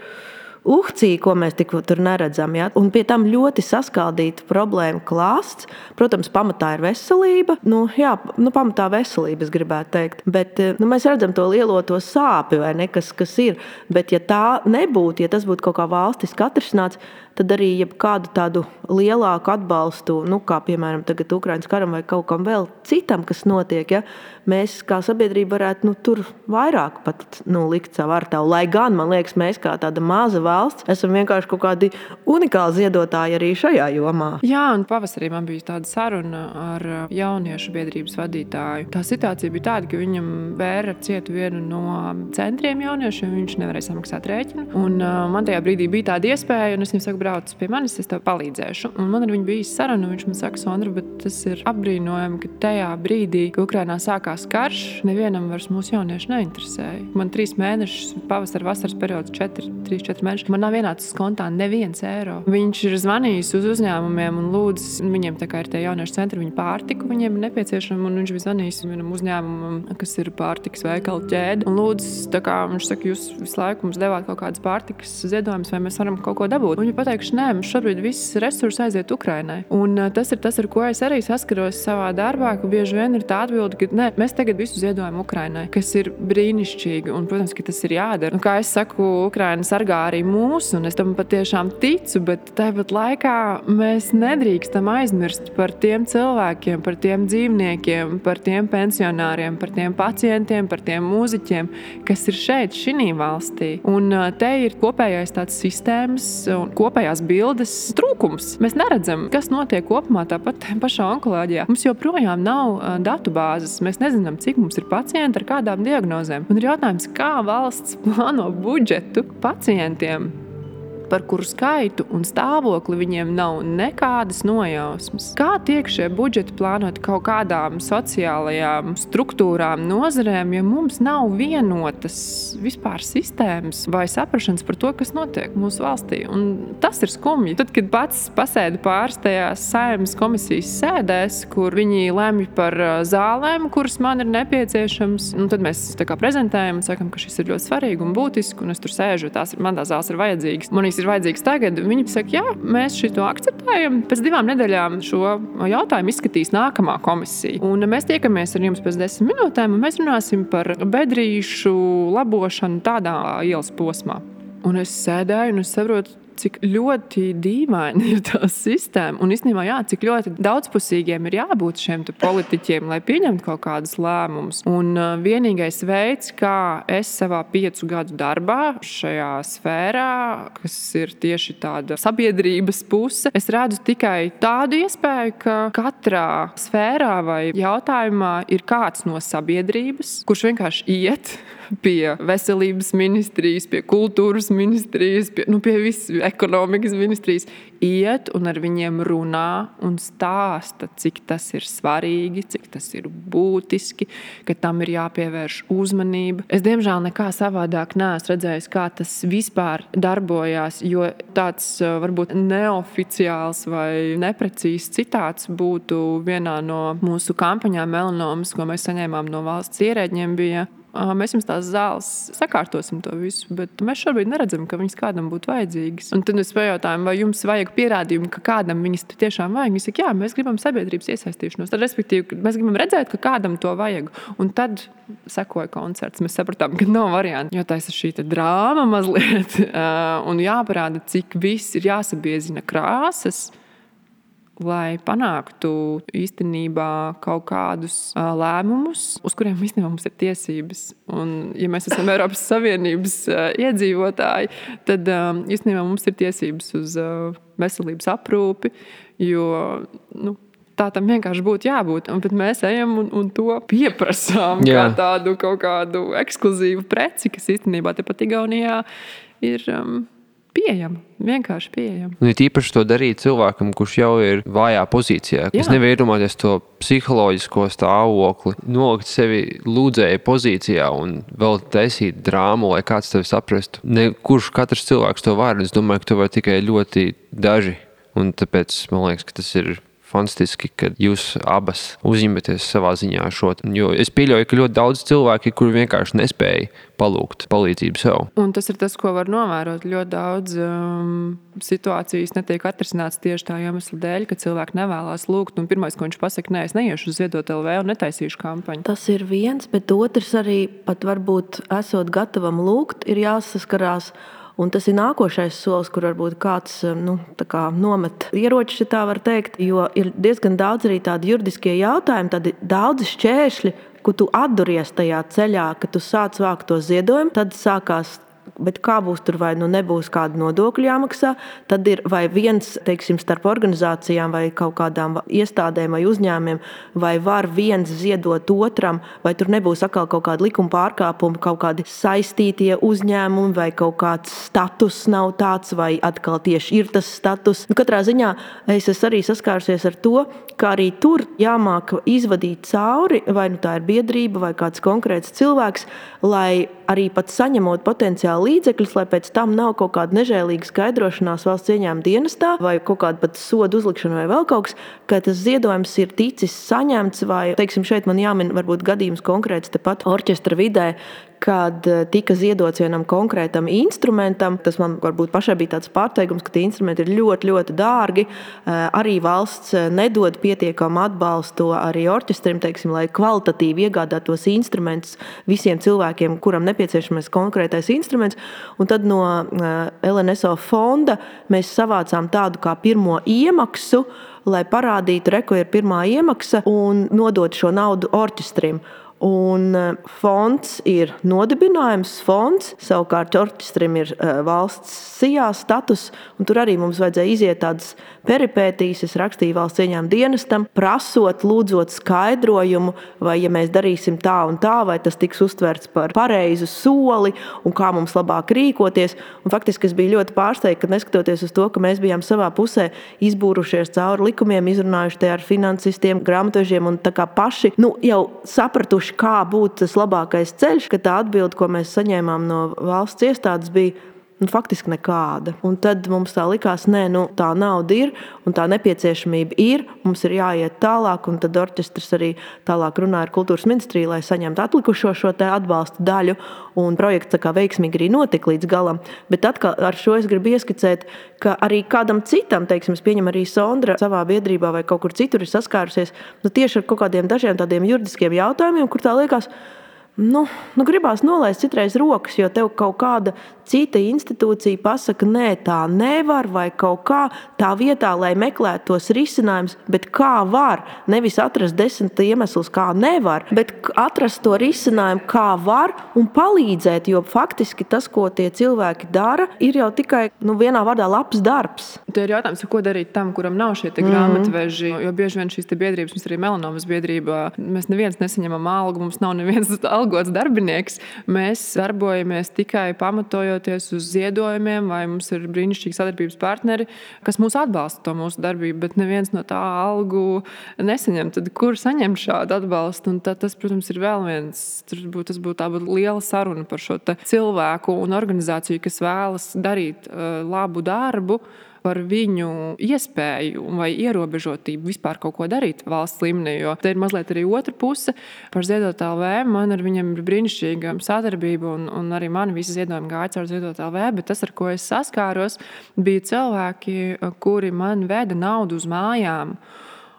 ko mēs tik tur neredzam. Ja? Un pie tam ļoti saskaldīta problēma klāsts. Protams, pamatā ir veselība. Pamatā veselība, es gribētu teikt. Bet mēs redzam to lielo to sāpi, vai ne, kas ir. Bet ja tā nebūtu, ja tas būtu kaut kā valstiski atrisināts, tad arī jebkādu tādu lielāku atbalstu, kā piemēram tagad Ukrainas karam vai kaut kam vēl citam, kas notiek, ja, mēs kā sabiedrība varētu tur vairāk pat likt savu artavu. Lai gan, man liekas, mēs kā tāda maza valsts esam vienkārši kaut kādi unikāli ziedotāji arī šajā jomā. Jā, un pavasarī man bija tāda saruna ar jauniešu biedrības vadītāju. Tā situācija bija tāda, ka viņam vēra cietu vienu no centriem jauniešiem, viņš nevarēja samaksāt rēķinu. Un man tajā brīdī bija tāda iespēja, un es viņam saku, brauc pie manis, es tev palīdzēšu. Un man ar viņu bija saruna, un viņš man saka, Sondra, bet tas ir apbrīnojami, ka tajā brīdī, kad Ukrainā sākās karš, nevienam vairs mūsu jaunieši neinteresēja. Man 3 mēnešus, pavasara, vasaras periods, 3-4 mēneši, man nav ienācis kontā neviens eiro. Viņš ir zvanījis uz uzņēmumiem un lūdz, viņiem tā kā ir tie jauniešu centri, viņi pārtiku, viņiem ir nepieciešama, un viņš bija zvanījis vienam uzņēmumam, kas ir pārtikas veikalu ķēde, un lūdz, tā kā viņš saka, jūs visu laiku mums devāt kaut kādas pārtikas ziedojumus, vai mēs varam kaut ko dabūt. Un viņi pateikšu, nē, mums šobrīd viss resursi aiziet Ukrainai. Un tas ir tas, ar ko es arī saskaros savā darbā, ka bieži vien ir tā atbilde, ka nē, mēs tagad visu ziedojam Ukrainai, kas ir brīnišķīgi, un, protams, ka tas ir jādara. Un, kā es saku, Ukraina sargā arī mūs, un es tam patiešām ticu, bet tāpat laikā mēs nedrīkstam aizmirst par tiem cilvēkiem, par tiem dzīvniekiem, par tiem pensionāriem, par tiem pacientiem, par tiem mūziķiem, kas ir šeit, šinī valstī. Un te ir kopējais tāds sistēmas un kopējās bildes trūkums. Mēs neredzam, kas notiek kopumā tāpat pašā onkoloģijā. Mums joprojām nav datu bāzes. Mēs nezinām, cik mums ir pacienti ar kādām diagnozēm. Un ir jautājums, kā valsts plāno budžetu pacientiem par kuru skaitu un stāvokli viņiem nav nekādas nojausmas. Kā tiek šie budžeti plānoti kaut kādām sociālajām struktūrām, nozarēm, ja mums nav vienotas vispār sistēmas vai saprašanas par to, kas notiek mūsu valstī? Un tas ir skumji. Tad, kad pats pasēdu pāris tajās Saeimas komisijas sēdēs, kur viņi lemj par zālēm, kuras man ir nepieciešams, un tad mēs tā kā prezentējam un sakam, ka šis ir ļoti svarīgi un būtiski, un es tur sēžu, man tās zāles ir vajadzīgas. Man viņas ir vajadzīgas tagad. Viņi saka, jā, mēs šito akceptējam. Pēc 2 nedēļām šo jautājumu izskatīs nākamā komisija. Un mēs tiekamies ar jums pēc 10 minūtēm, un mēs runāsim par bedrīšu labošanu tādā ielas posmā. Un es sēdēju un es saprotu, cik ļoti dīvaini ir tā sistēma. Un īstenībā, jā, cik ļoti daudzpusīgiem ir jābūt šiem politiķiem, lai pieņemtu kaut kādus lēmumus. Un vienīgais veids, kā es savā 5 gadu darbā šajā sfērā, kas ir tieši tāda sabiedrības puse, es redzu tikai tādu iespēju, ka katrā sfērā vai jautājumā ir kāds no sabiedrības, kurš vienkārši iet pie veselības ministrijas, pie kultūras ministrijas, pie visas ekonomikas ministrijas, iet un ar viņiem runā un stāsta, cik tas ir svarīgi, cik tas ir būtiski, ka tam ir jāpievērš uzmanība. Es, diemžēl, nekā savādāk neesmu redzējis, kā tas vispār darbojās, jo tāds varbūt neoficiāls vai neprecīzs citāts būtu vienā no mūsu kampaņām Melanomas, ko mēs saņēmām no valsts ierēģiem, bija: mēs jums tās zāles sakārtosim to visu, bet mēs šobrīd neredzam, ka viņas kādam būtu vajadzīgas. Un tad mēs pajautājam, vai jums vajag pierādījumu, ka kādam viņas tiešām vajag. Viņi saka, jā, mēs gribam sabiedrības iesaistīšanos. Tad, respektīvi, mēs gribam redzēt, ka kādam to vajag. Un tad sekoja koncerts. Mēs sapratām, ka nav variantu, jo tā ir šī drāma mazliet. Un jāparāda, cik viss ir jāsabiezina krāsas, lai panāktu īstenībā kaut kādus lēmumus, uz kuriem īstenībā mums ir tiesības. Un, ja mēs esam Eiropas Savienības iedzīvotāji, tad īstenībā mums ir tiesības uz veselības aprūpi, jo tā tam vienkārši būtu jābūt. Bet mēs ejam un to pieprasām kā tādu kaut kādu ekskluzīvu preci, kas īstenībā tepat Igaunijā ir pieejama, vienkārši pieejama. Un ir īpaši to darīt cilvēkam, kurš jau ir vājā pozīcijā, kas nevar iedomāties to psiholoģisko stāvokli, nolikt sevi lūdzēja pozīcijā un vēl taisīt drāmu, lai kāds tevi saprastu. Kurš katrs cilvēks to var, es domāju, ka to var tikai ļoti daži. Un tāpēc man liekas, ka tas ir fantastiski, ka jūs abas uzņematies savā ziņā šo. Jo es pieļauju, ka ļoti daudz cilvēki, kuri vienkārši nespēja palūgt palīdzību sev. Un tas ir tas, ko var novērot. Ļoti daudz situācijas netiek atrisināts tieši tā iemesla dēļ, ka cilvēki nevēlās lūgt. Un pirmais, ko viņš pasaka, es neiešu uz Ziedot LV un netaisīšu kampaņu. Tas ir viens, bet otrs arī pat varbūt esot gatavam lūgt, ir jāsaskarās. Un tas ir nākošais solis, kur varbūt kāds nomet ieroči, tā var teikt, jo ir diezgan daudz arī tādi juridiskie jautājumi, tādi daudzi šķēršļi, ko tu atduries tajā ceļā, ka tu sāc vākt to ziedojumu, tad sākās. Bet kā būs tur, vai nebūs kāda nodokļa jāmaksā, tad ir vai viens, teiksim, starp organizācijām vai kaut kādām iestādēm vai uzņēmumiem, vai var viens ziedot otram, vai tur nebūs atkal kaut kāda likuma pārkāpuma, kaut kādi saistītie uzņēmumi, vai kaut kāds status nav tāds, vai atkal tieši ir tas status. Katrā ziņā es esmu arī saskārusies ar to, ka arī tur jāmāk izvadīt cauri, vai tā ir biedrība vai kāds konkrēts cilvēks, lai arī pat saņemot potenciāli līdzekļus, lai pēc tam nav kaut kāda nežēlīga skaidrošanās valsts ieņēmuma dienestā vai kaut kāda pat sodu uzlikšana vai vēl kaut kas, ka tas ziedojums ir ticis saņemts vai, teiksim, šeit man jāmin varbūt gadījums konkrēts tepat orķestra vidē, kad tika ziedots vienam konkrētam instrumentam. Tas man varbūt pašai bija tāds pārsteigums, ka tie instrumenti ir ļoti, ļoti dārgi. Arī valsts nedod pietiekamu atbalstu arī orķestrim, teiksim, lai kvalitatīvi iegādātos instrumentus visiem cilvēkiem, kuram nepieciešamais konkrētais instruments. Un tad no LNSO fonda mēs savācām tādu kā pirmo iemaksu, lai parādītu, ko ir pirmā iemaksa un nodot šo naudu orķestrim. Un fonds ir nodibinājums fonds, savukārt orķestrim ir valsts SIA status, un tur arī mums vajadzēja iziet tādas peripētīs. Es rakstīju valsts ieņēmuma dienestam, prasot, lūdzot skaidrojumu, vai ja mēs darīsim tā un tā, vai tas tiks uztverts par pareizu soli un kā mums labāk rīkoties. Un faktiski es biju ļoti pārsteigta, ka neskatoties uz to, ka mēs bijām savā pusē izbūrušies cauri likumiem, izrunājuši te ar finansistiem, grāmatvežiem un tā kā paši jau sapratuši, kā būtu tas labākais ceļš, ka tā atbilde, ko mēs saņēmām no valsts iestādes, bija faktiski nekāda. Un tad mums tā likās, tā nauda ir un tā nepieciešamība ir, mums ir jāiet tālāk, un tad orķestrs arī tālāk runāja ar kultūras ministriju, lai saņemtu atlikušo šo te atbalsta daļu, un projekts tā kā veiksmīgi arī notika līdz galam. Bet atkal ar šo es gribu ieskicēt, ka arī kādam citam, teiksim, es pieņemu arī Sondra savā biedrībā vai kaut kur citur ir saskārusies, tieši ar kaut kādiem dažiem tādiem juridiskiem jautājumiem, kur tā liekas, gribās nolaist citreiz rokas, jo tev kaut kāda cita institūcija pasaka, nē, tā nevar, vai kaut kā tā vietā, lai meklētu tos risinājumus, bet kā var, nevis atrast 10 iemeslus, kā nevar, bet atrast to risinājumu, kā var un palīdzēt, jo faktiski tas, ko tie cilvēki dara, ir jau tikai vienā vārdā labs darbs. Te ir jautājums, ko darīt tam, kuram nav šie grāmatveži, jo bieži vien šīs biedrības, mums arī Melanomas biedrībā, mēs neviens nesaņemam algu, mums nav neviens algots darbinieks, mēs darbojamies tikai pamatojoties uz ziedojumiem, vai mums ir brīnišķīgi sadarbības partneri, kas mūs atbalsta to mūsu darbību, bet neviens no tā algu nesaņem. Tad kur saņemt šādu atbalstu? Un tad tas, protams, ir vēl viens, tas būtu tā liela saruna par šo cilvēku un organizāciju, kas vēlas darīt labu darbu, par viņu iespēju vai ierobežotību vispār kaut ko darīt valsts līmenī. Jo te ir mazliet arī otra puse par Ziedot LV. Man ar viņiem ir brīnišķīga sadarbība un arī mani visi ziedojumi gāja caur Ziedot LV, bet tas, ar ko es saskāros, bija cilvēki, kuri man veda naudu uz mājām.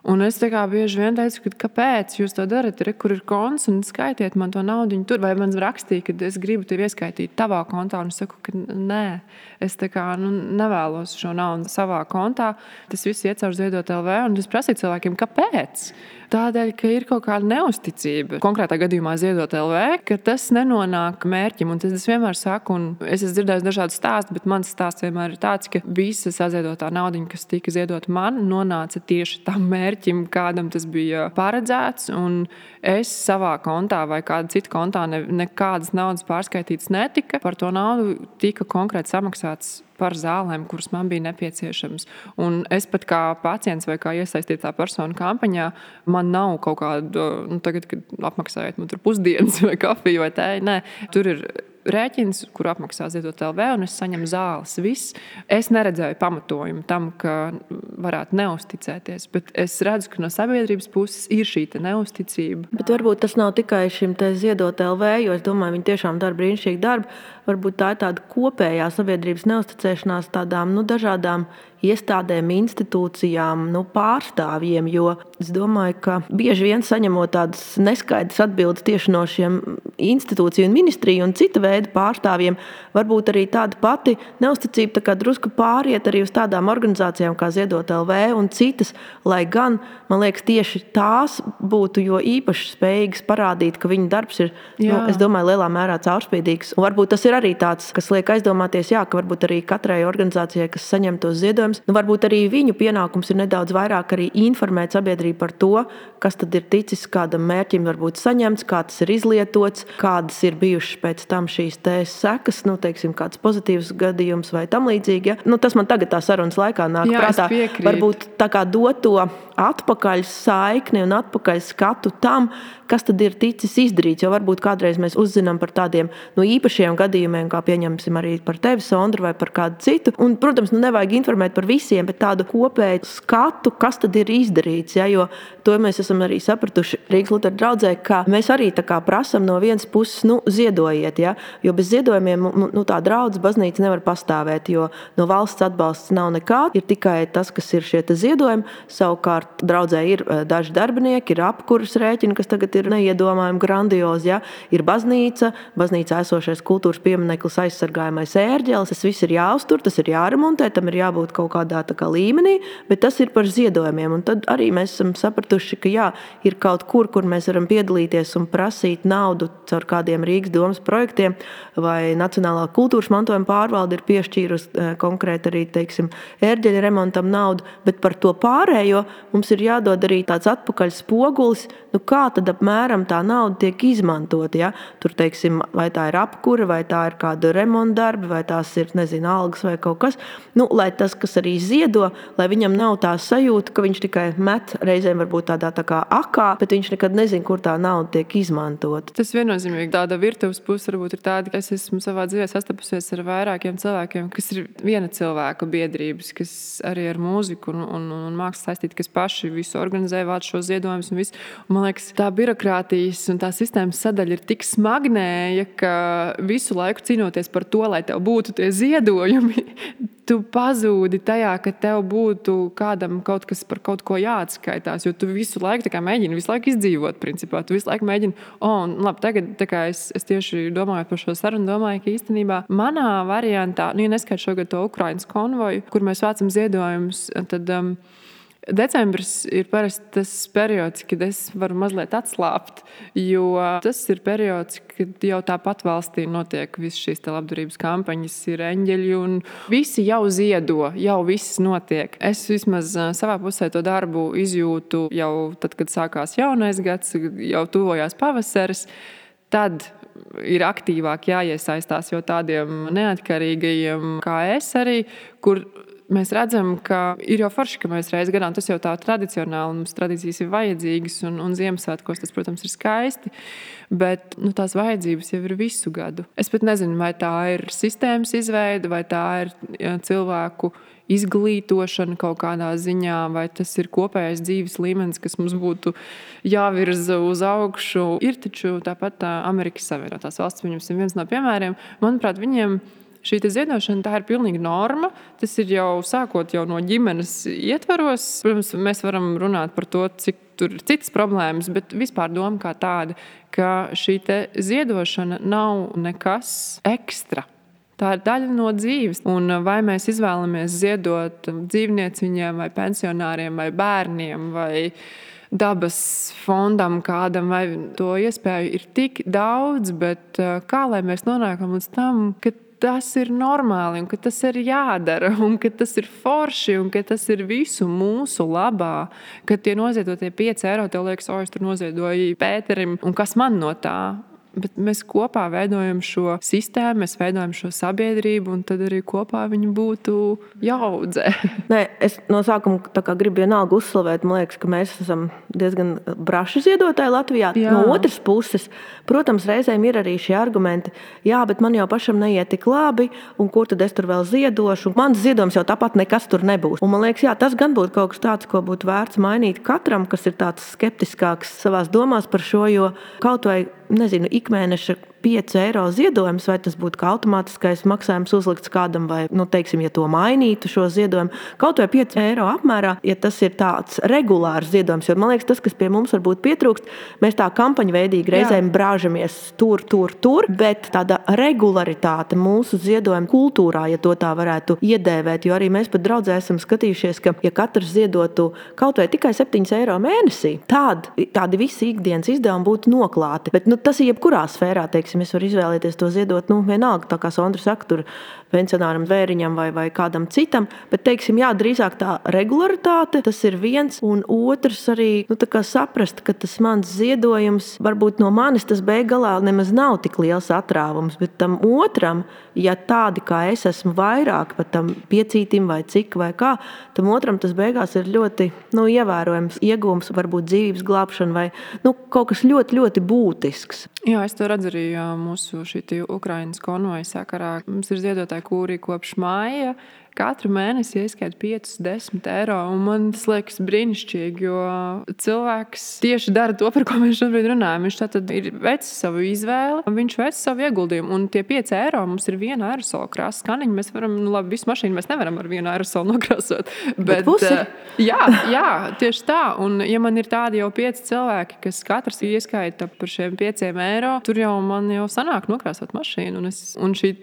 Un es bieži vien teicu, kāpēc jūs to darat, kur ir konts un skaitiet man to naudiņu tur. Vai man rakstīja, ka es gribu tevi ieskaitīt tavā kontā, un es saku, ka nē, es nevēlos šo naudu savā kontā. Tas viss iet caur Ziedot LV, un es prasīju cilvēkiem, kāpēc? Tādēļ, ka ir kaut kāda neusticība. Konkrētā gadījumā Ziedot LV, ka tas nenonāk mērķim. Un es vienmēr saku, un es esmu dzirdējis dažādas stāstus, bet mans stāsts vienmēr ir tāds, ka visa saziedotā naudiņa, kas tika ziedota man, nonāca tieši tam mērķim, kādam tas bija paredzēts. Un es savā kontā vai kāda cita kontā nekādas naudas pārskaitītas netika. Par to naudu tika konkrēti samaksāts par zālēm, kuras man bija nepieciešams. Un es pat kā pacients vai kā iesaistītā persona kampaņā, man nav kaut kāda, tagad, kad apmaksājiet man tur pusdienas vai kafiju vai tēju, nē, tur ir rēķins, kuru apmaksā Ziedot LV, un es saņemu zāles. Viss. Es neredzēju pamatojumu tam, ka varētu neusticēties, bet es redzu, ka no sabiedrības puses ir šī neusticība. Bet varbūt tas nav tikai šim Ziedot LV, jo es domāju, viņi tiešām dara brīnišķīgu darbu. Varbūt tā ir tāda kopējā sabiedrības neusticēšanās tādām dažādām iestādēm, institūcijām, pārstāvjiem, jo es domāju, ka bieži vien saņemot tādas neskaidras atbildes tieši no šiem institūciju un ministriju un cita veida pārstāvjiem, varbūt arī tāda pati neusticība tā kā drusku pāriet arī uz tādām organizācijām kā Ziedot LV un citas, lai gan, man liekas, tieši tās būtu jo īpaši spējīgas parādīt, ka viņu darbs ir, es domāju, lielā mērā caurspīdīgs. Un varbūt tas ir arī tāds, kas liek aizdomāties, ka varbūt arī katrai organizācijai, kas saņem tos ziedojumus, varbūt arī viņu pienākums ir nedaudz vairāk arī informēt sabiedrību par to, kas tad ir ticis kādam mērķim varbūt saņemts, kā tas ir izlietots, kādas ir bijušas pēc tam šīs sekas, teiksim, kāds pozitīvs gadījums vai tam līdzīgi. Ja? Tas man tagad tā sarunas laikā nāk prātā. Varbūt tā kā dot to atpakaļ saikni un atpakaļ skatu tam, kas tad ir ticis izdarīts, jo varbūt kādreiz mēs uzzinām par tādiem īpašiem gadījumiem, kā pieņemsim arī par tevi, Sondra, vai par kādu citu. Un, protams, nevajag informēt par visiem, bet tādu kopēju skatu, kas tad ir izdarīts, ja? Jo to mēs esam arī sapratuši Rīgas Lutheru draudzē, ka mēs arī tā kā prasam no vienas puses, ziedojiet, ja? Jo bez ziedojumiem tā draudzes baznīca nevar pastāvēt, jo no valsts atbalsts nav nekā, ir tikai tas, kas ir šie ziedojumi. Savukārt draudzē ir daži darbinieki, ir apkuras rēķini, kas tagad ir neiedomājami grandiozi, ja? Ir baznīcā esošais kultūras piemineklis aizsargājamais ērģelis, tas viss ir jāuztur, tas ir jāremontē, tam ir jābūt kaut kaut kādā tā kā līmenī, bet tas ir par ziedojumiem. Un tad arī mēs esam sapratuši, ka jā, ir kaut kur mēs varam piedalīties un prasīt naudu caur kādiem Rīgas domas projektiem, vai Nacionālā kultūras mantojuma pārvalde ir piešķīrusi konkrēti arī, teiksim, ērģeļa remontam naudu, bet par to pārējo mums ir jādod arī tāds atpakaļ spogulis, kā tad apmēram tā nauda tiek izmantota. Ja? Tur, teiksim, vai tā ir apkure, vai tā ir kāda remontdarbi, vai tās ir, nezinu, algas vai kaut kas. Lai tas, kas arī ziedo, lai viņam nav tā sajūta, ka viņš tikai met reizēm varbūt tādā tā kā akā, bet viņš nekad nezina, kur tā nauda tiek izmantota. Tas viennozīmīgi tāda virtuves puse varbūt ir tāda, ka es esmu savā dzīvē sastapusies ar vairākiem cilvēkiem, kas ir viena cilvēka biedrības, kas arī ar mūziku un mākslu saistīti, kas paši visu organizē, vāc šo ziedojumus un visu. Un man liekas, tā birokrātijas un tā sistēmas sadaļa ir tik smagnēja, ka visu laiku cīnoties par to, lai tev būtu tie ziedojumi, tu pazūdi tajā, ka tev būtu kādam kaut kas par kaut ko jāatskaitās, jo tu visu laiku mēģini visu laiku izdzīvot, principā. Tu visu laiku mēģini, labi, tagad es tieši domāju par šo sarunu, domāju, ka īstenībā manā variantā, ja neskait šogad to Ukrainas konvoju, kur mēs vācam ziedojumus, tad decembris ir parasti tas periods, kad es varu mazliet atslāpt, jo tas ir periods, kad jau tāpat valstī notiek visas šīs labdarības kampaņas, ir eņģeļi un visi jau ziedo, jau viss notiek. Es vismaz savā pusē to darbu izjūtu jau tad, kad sākās jaunais gads, jau tuvojās pavasaris, tad ir aktīvāk jāiesaistās jau tādiem neatkarīgajiem kā es arī, kur mēs redzam, ka ir jau forši, ka mēs reiz gadā, un tas jau tā tradicionāli, mums tradīcijas ir vajadzīgas, un Ziemassvētkos tas, protams, ir skaisti, bet tās vajadzības jau ir visu gadu. Es pat nezinu, vai tā ir sistēmas izveida, vai tā ir cilvēku izglītošana kaut kādā ziņā, vai tas ir kopējais dzīves līmenis, kas mums būtu jāvirza uz augšu. Ir taču tāpat Amerikas Savienotās valsts, viņam ir viens no piemēriem. Manuprāt, viņiem šī ziedošana, tā ir pilnīgi norma. Tas ir jau sākot jau no ģimenes ietvaros. Protams, mēs varam runāt par to, cik tur ir citas problēmas, bet vispār doma kā tāda, ka šī ziedošana nav nekas ekstra. Tā ir daļa no dzīves. Un vai mēs izvēlamies ziedot dzīvnieciņiem vai pensionāriem vai bērniem vai dabas fondam kādam, vai to iespēju ir tik daudz, bet kā lai mēs nonākam līdz tam, ka tas ir normāli un ka tas ir jādara un ka tas ir forši un ka tas ir visu mūsu labā, ka tie noziedotie 5 eiro, tev liekas, es tur noziedoju Pēterim un kas man no tā? Bet mēs kopā veidojam šo sistēmu, mēs veidojam šo sabiedrību, un tad arī kopā viņi būtu jāaudzē. Nē, es no sākuma gribu vienalga uzslavēt, man liekas, ka mēs esam diezgan braši ziedotāji Latvijā. Jā. No otras puses, protams, reizēm ir arī šie argumenti, jā, bet man jau pašam neiet tik labi, un kur tad es tur vēl ziedošu, un mans ziedojums jau tāpat nekas tur nebūs. Un man liekas, jā, tas gan būtu kaut kas tāds, ko būtu vērts mainīt katram, kas ir tāds skeptiskāks savās domās par šo, jo kaut vai nezinu, ikmēneša 5 eiro ziedojums, vai tas būtu kā automātiskais maksājums uzlikts kādam, vai, teiksim, ja to mainītu šo ziedojumu, kaut vai 5 eiro apmērā, ja tas ir tāds regulārs ziedojums, jo man liekas, tas, kas pie mums varbūt pietrūkst, mēs tā kampaņveidīgi reizēm brāžamies tur, bet tāda regularitāte mūsu ziedojuma kultūrā, ja to tā varētu iedēvēt, jo arī mēs pat draudzē esam skatījušies, ka, ja katrs ziedotu kaut vai tikai 7 eiro mēnesī, tādi visi ikdienas izdevumi būtu noklāti, bet tas ir jebkurā sfērā, teiksim, es varu izvēlēties to ziedot, vienalga, tā kā Sondra saka, tur pensionāram, vēriņam vai kādam citam, bet, teiksim, jā, drīzāk tā regularitāte, tas ir viens, un otrs arī, tā kā saprast, ka tas mans ziedojums, varbūt no manis tas beigalā nemaz nav tik liels atrāvums, bet tam otram, ja tādi kā es esmu vairāk, pat tam piecītim vai cik vai kā, tam otram tas beigās ir ļoti, ievērojams iegūms, varbūt dzīvības glābšana vai, kaut kas ļoti, ļoti būtisks. Jā, es to redzu arī mūsu šī Ukrainas konvoja sakarā. Mums ir ziedotāji, kuri kopš māja katru mēnesi ieskaita 5-10 eiro. Un man tas liekas brīnišķīgi, jo cilvēks tieši dara to, par ko mēs šobrīd runājam. Viņš tātad ir veicis savu izvēli, viņš veic savu ieguldījumu. Un tie 5 eiro mums ir viena aerosola krāsas skaniņa. Mēs varam, visu mašīnu mēs nevaram ar vienu aerosolu nokrāsot. Bet pusi. Jā, tieši tā. Un ja man ir tādi jau 5 cilvēki, kas katrs ieskaita par šiem 5 eiro, tur jau man jau sanāk nokrāsot mašīnu. Un šī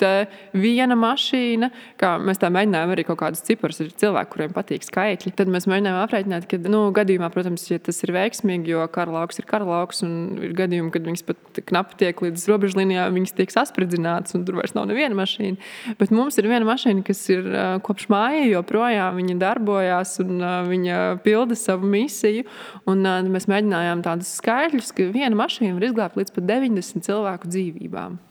viena mašīna, kā mēs tā mēģinājām mēģinājām arī kaut kādus ciparus, ir cilvēki, kuriem patīk skaitļi. Tad mēs mēģinājām aprēķināt, ka gadījumā, protams, ja tas ir veiksmīgi, jo karalauks ir karalauks un ir gadījumi, kad viņas pat knapi tiek līdz robežlīnijām, viņas tiek saspridzinātas un tur vairs nav neviena mašīna. Bet mums ir viena mašīna, kas ir kopš māja, joprojām viņa darbojās un viņa pilda savu misiju. Un mēs mēģinājām tādus skaitļus, ka viena mašīna var izglābt līdz pat 90 cilvēku dzīvībām.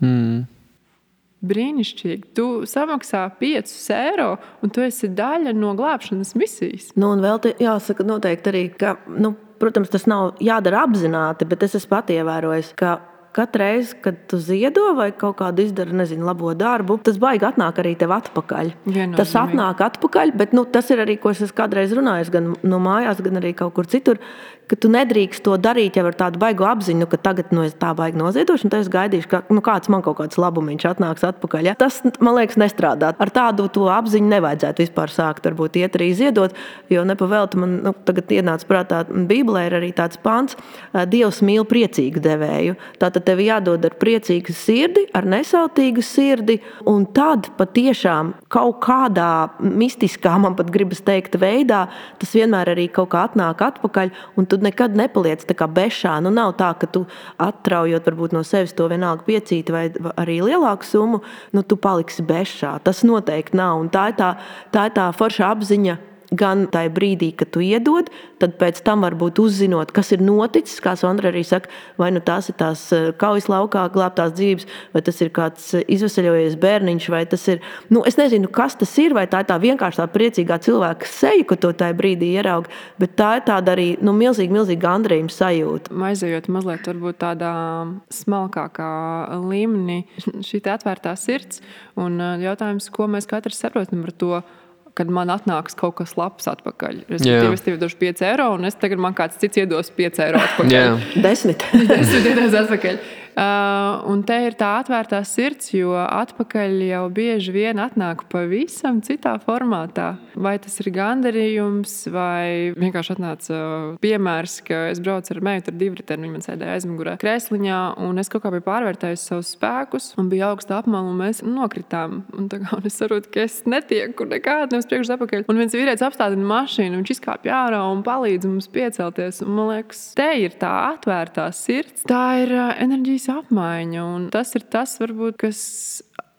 Brīnišķīgi. Tu samaksā 5 eiro, un tu esi daļa no glābšanas misijas. Un vēl jāsaka noteikti arī, ka, protams, tas nav jādara apzināti, bet es esmu pat ievērojis, ka katru reizi, kad tu ziedo vai kaut kādu izdara, labo darbu, tas baigi atnāk arī tev atpakaļ. Tas atnāk atpakaļ, bet tas ir arī, ko es kādreiz runāju, gan no mājās, gan arī kaut kur citur, ka tu nedrīkst to darīt jau ar tādu baigu apziņu, ka tagad es tā baigi noziedošu, un tad es gaidīšu, ka kāds man kaut kāds labumiņš atnāks atpakaļ. Ja? Tas, man liekas, nestrādā. Ar tādu to apziņu nevajadzētu vispār sākt, varbūt iet arī ziedot, jo nepavēlti man tagad ienāca prātā Bībelē ir arī tāds pants, Dievs mīl priecīgu devēju. Tātad tev jādod ar priecīgu sirdi, ar nesautīgu sirdi, un tad patiešām kaut kādā mistiskā, man pat gribas teikt, veidā, tas vienmēr arī kaut kā atnāk atpakaļ, un tu nekad nepaliec tā kā bešā. Nav tā, ka tu attraujot varbūt no sevis to vienalga piecīti vai arī lielāku summu, tu paliksi bešā. Tas noteikti nav, un tā ir tā forša apziņa, gan tajā brīdī, kad tu iedod, tad pēc tam varbūt uzzinot, kas ir noticis, kā Sondra arī saka, vai tās ir tās kaujas laukā glābtās dzīves, vai tas ir kāds izveseļojies bērniņš, vai tas ir, es nezinu, kas tas ir, vai tā ir tā vienkārši tā priecīgā cilvēka seja, ko to tajā brīdī ieraug, bet tā ir tāda arī, milzīga gandarījuma sajūta. Aizejot mazliet varbūt tādā smalkākā līmenī, šī atvērtā sirds, un jautājums, ko mēs katrs saprotam ar to, kad man atnāks kaut kas labs atpakaļ. Es tev došu 5 eiro, un tagad man kāds cits iedos 5 eiro atpakaļ. 10 iedos atpakaļ. Un te ir tā atvērtā sirds, jo atpakaļ jau bieži vien atnāk pavisam citā formātā. Vai tas ir gandarījums, vai vienkārši atnāca piemērs, ka es braucu ar meitu ar divriteni, viņa man sēdēja aizmugurē krēsliņā, un es kaut kā biju pārvērtējusi savus spēkus, un bija augsta apmala, un mēs nokritām. Un es saprotu, ka es netieku nekādu nevis priekš atpakaļ. Un viens vīrietis apstādina mašīnu, viņš izkāpj ārā un palīdz mums piecelties. Un man liekas, te ir tā atvērtā sirds, tā ir enerģijas apmaiņa, un tas ir tas, varbūt, kas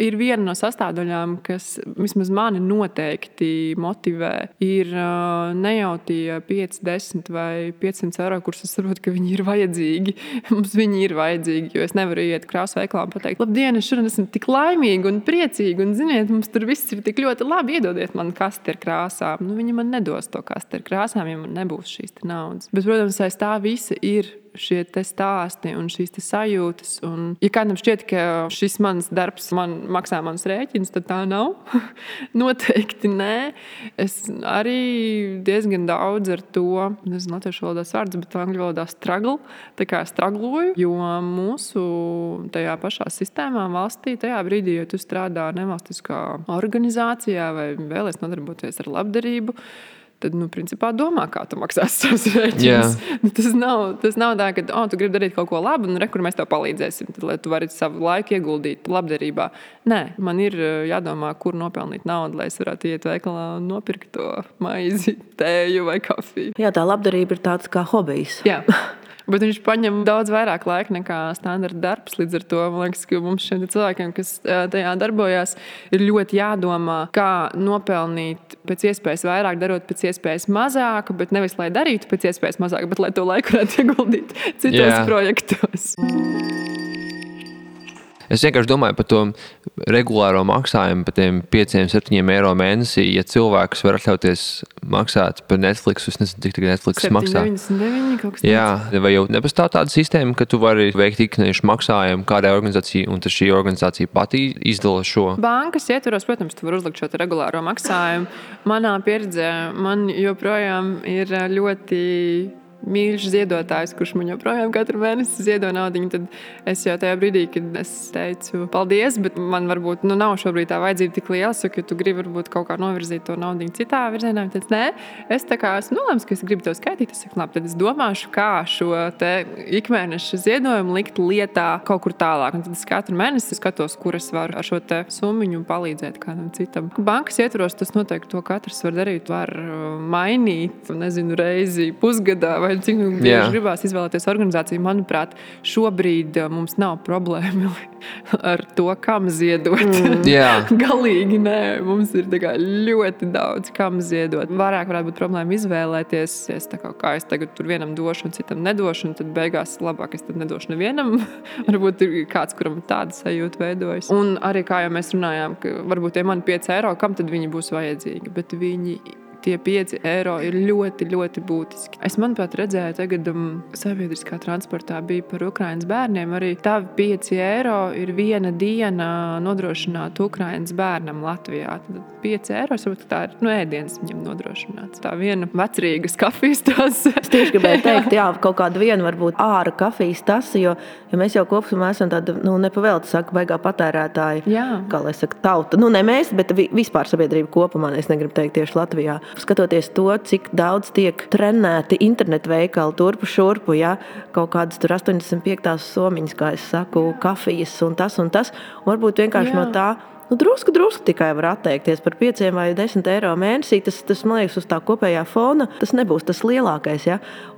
ir viena no sastāvdaļām, kas vismaz mani noteikti motivē, ir ne jau tie 5, 10 vai 500 eiro, kurus es saprotu, ka viņi ir vajadzīgi. Mums viņi ir vajadzīgi, jo es nevaru iet krāsu veiklā un pateikt, labdien, es šodien esmu tik laimīga un priecīga, un ziniet, mums tur viss ir tik ļoti labi, iedodiet man kasti ar krāsām. Viņi man nedos to kasti ar krāsām, ja man nebūs šīs naudas. Bet, protams, aiz tā visa ir šie te stāsti un šīs te sajūtas. Un, ja kādam šķiet, ka šis mans darbs man maksā manas rēķinus, tad tā nav. Noteikti nē. Es arī diezgan daudz ar to, nezinu, latviešu valodās vārds, bet angļu valodā struggle, tā kā stragloju, jo mūsu tajā pašā sistēmā valstī, tajā brīdī, ja tu strādā nevalstiskā organizācijā vai vēlies nodarboties ar labdarību, tad, principā domā, kā tu maksās savus rēķinus. Tas nav tā, ka tu gribi darīt kaut ko labu, un kur mēs tev palīdzēsim, tad, lai tu vari savu laiku ieguldīt labdarībā. Nē, man ir jādomā, kur nopelnīt naudu, lai es varētu iet veikalā un nopirkt to maizi, tēju vai kafiju. Jā, tā labdarība ir tāds kā hobijs. Jā. Bet viņš paņem daudz vairāk laika nekā standarta darbs. Līdz ar to, man liekas, ka mums šiem cilvēkiem, kas tajā darbojās, ir ļoti jādomā, kā nopelnīt pēc iespējas vairāk, darot pēc iespējas mazāk, bet nevis, lai darītu pēc iespējas mazāk, bet lai to laiku varētu ieguldīt citos projektos. Es vienkārši domāju par to regulāro maksājumu, par tiem 5-7 eiro mēnesī, ja cilvēks var atļauties maksāt par Netflix, es nezinu, cik Netflix maksā. 7,99 kaut kas tāds. Jā, vai jau nepastāv tāda sistēma, ka tu vari veikt iknējuši maksājumu kādai organizācijai, un tad šī organizācija patī izdala šo? Bankas ietvaros, protams, tu vari uzlikt šo regulāro maksājumu. Manā pieredzē man joprojām ir ļoti mīļš ziedotājs, kurš man joprojām katru mēnesi ziedo naudiņu, tad es jau tajā brīdī, kad es teicu paldies, bet man varbūt nav šobrīd tā vajadzība tik liela, ka tu gribi varbūt kaut kā novirzīt to naudiņu citā virzienā. Tad nē, es tā kā esmu nolēmis, ka es gribu tev skaitīt. Es saku, labi, tad es domāšu, kā šo te ikmēneša ziedojumu likt lietā kaut kur tālāk. Un tad es katru mēnesi skatos, kur es varu ar šo te summiņu palīdzēt kādam citam. Bankas ietvaros tas noteikti to katrs var darīt, var mainīt, nezinu, reizi pusgadā vai cik bieži gribās izvēlēties organizāciju. Manuprāt, šobrīd mums nav problēma ar to, kam ziedot. Galīgi nē, mums ir ļoti daudz, kam ziedot. Varētu būt problēma izvēlēties, kā es tagad tur vienam došu un citam nedošu, un tad beigās labāk es tad nedošu nevienam. Varbūt ir kāds, kuram tāda sajūta veidojas. Un arī, kā jau mēs runājām, ka varbūt tie mani 5 eiro, kam tad viņi būs vajadzīgi, bet tie 5 eiro ir ļoti, ļoti būtiski. Es, manuprāt, redzēju tagad sabiedriskā transportā bija par Ukrainas bērniem. Arī tā 5 eiro ir viena diena nodrošināt Ukrainas bērnam Latvijā. Tad 5 eiro, varbūt tā ir ēdienas viņam nodrošināts. Tā viena vecrīgas kafijas tasa. Es tieši gribēju teikt, kaut kāda viena varbūt āra kafijas tasa, jo mēs jau kopumā esam tāda, nepavēlti saka, baigā patērētāji. Kā lai saka, tauta. Ne mēs, bet vispār sabiedrība kopumā, es negribu teikt tieši Latvijā. Skatoties to, cik daudz tiek trenēti internetu veikali turpu šurpu, kaut kādas tur 85 somiņas, kā es saku, kafijas un tas. Un varbūt vienkārši no tā drusku tikai var atteikties par 5 vai 10 eiro mēnesī. Tas, man liekas, uz tā kopējā fona, tas nebūs tas lielākais.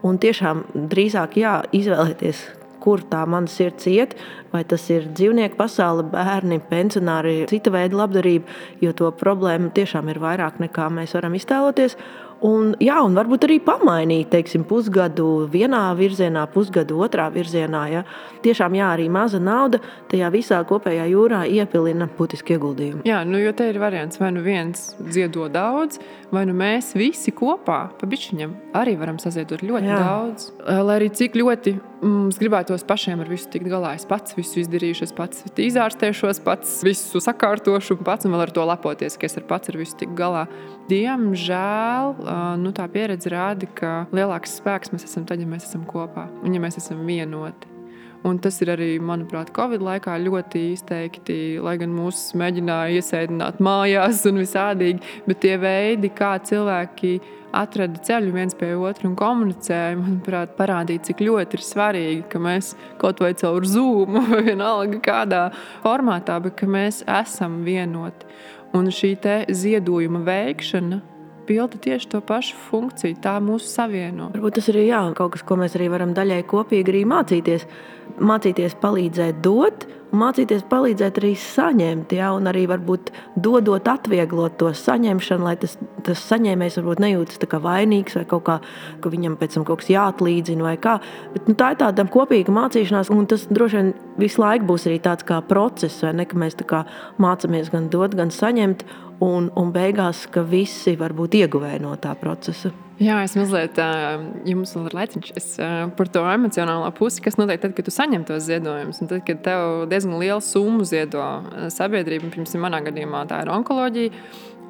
Un tiešām drīzāk izvēlēties, kur tā mana sirds iet, vai tas ir dzīvnieku pasaule, bērni, pensionāri, cita veida labdarība, jo to problēmu tiešām ir vairāk nekā mēs varam iztēloties. Un varbūt arī pamainīt, teiksim, pusgadu vienā virzienā, pusgadu otrā virzienā. Tiešām arī maza nauda tajā visā kopējā jūrā iepilina būtisku ieguldījumu. Jo te ir variants, vai viens ziedo daudz, vai mēs visi kopā pa bišķiņam arī varam saziedot ļoti daudz. Lai arī cik ļoti mums gribētos pašiem ar visu tikt galā. Es pats visu izdarīšu, es pats izārstēšos, pats visu sakārtošu, pats un vēl ar to lepoties, ka es pats ar visu tikt galā. Diemžēl tā pieredze rāda, ka lielāks spēks mēs esam tad, ja mēs esam kopā un ja mēs esam vienoti. Un tas ir arī, manuprāt, Covid laikā ļoti izteikti, lai gan mūs mēģināja iesēdināt mājās un visādīgi, bet tie veidi, kā cilvēki atrada ceļu viens pie otru un komunicēja, manuprāt, parādīja, cik ļoti ir svarīgi, ka mēs kaut vai caur Zoom vai vienalga kādā formātā, bet ka mēs esam vienoti. Un šī te ziedojuma veikšana pilda tieši to pašu funkciju, tā mūsu savieno. Varbūt tas arī kaut kas, ko mēs arī varam daļai kopīgi arī mācīties. Mācīties palīdzēt dot, mācīties palīdzēt arī saņemt, un arī varbūt dodot atvieglot to saņemšanu, lai tas saņēmējs varbūt nejūtas tā kā vainīgs vai kaut kā, ka viņam pēc tam kaut kas jāatlīdzina vai kā. Bet tā ir tāda kopīga mācīšanās, un tas droši vien visu laiku būs arī tāds kā process, vai ne, ka mēs tā kā mācāmies gan dot, gan saņemt, un beigās, ka visi varbūt ieguvēja no tā procesa. Es mazliet, ja mums vēl ir laiciņš, par to emocionālo pusi, kas notiek tad, kad tu saņem tos ziedojumus, un tad, kad tev diezgan lielu summu ziedo sabiedrība, pirms manā gadījumā tā ir onkoloģija,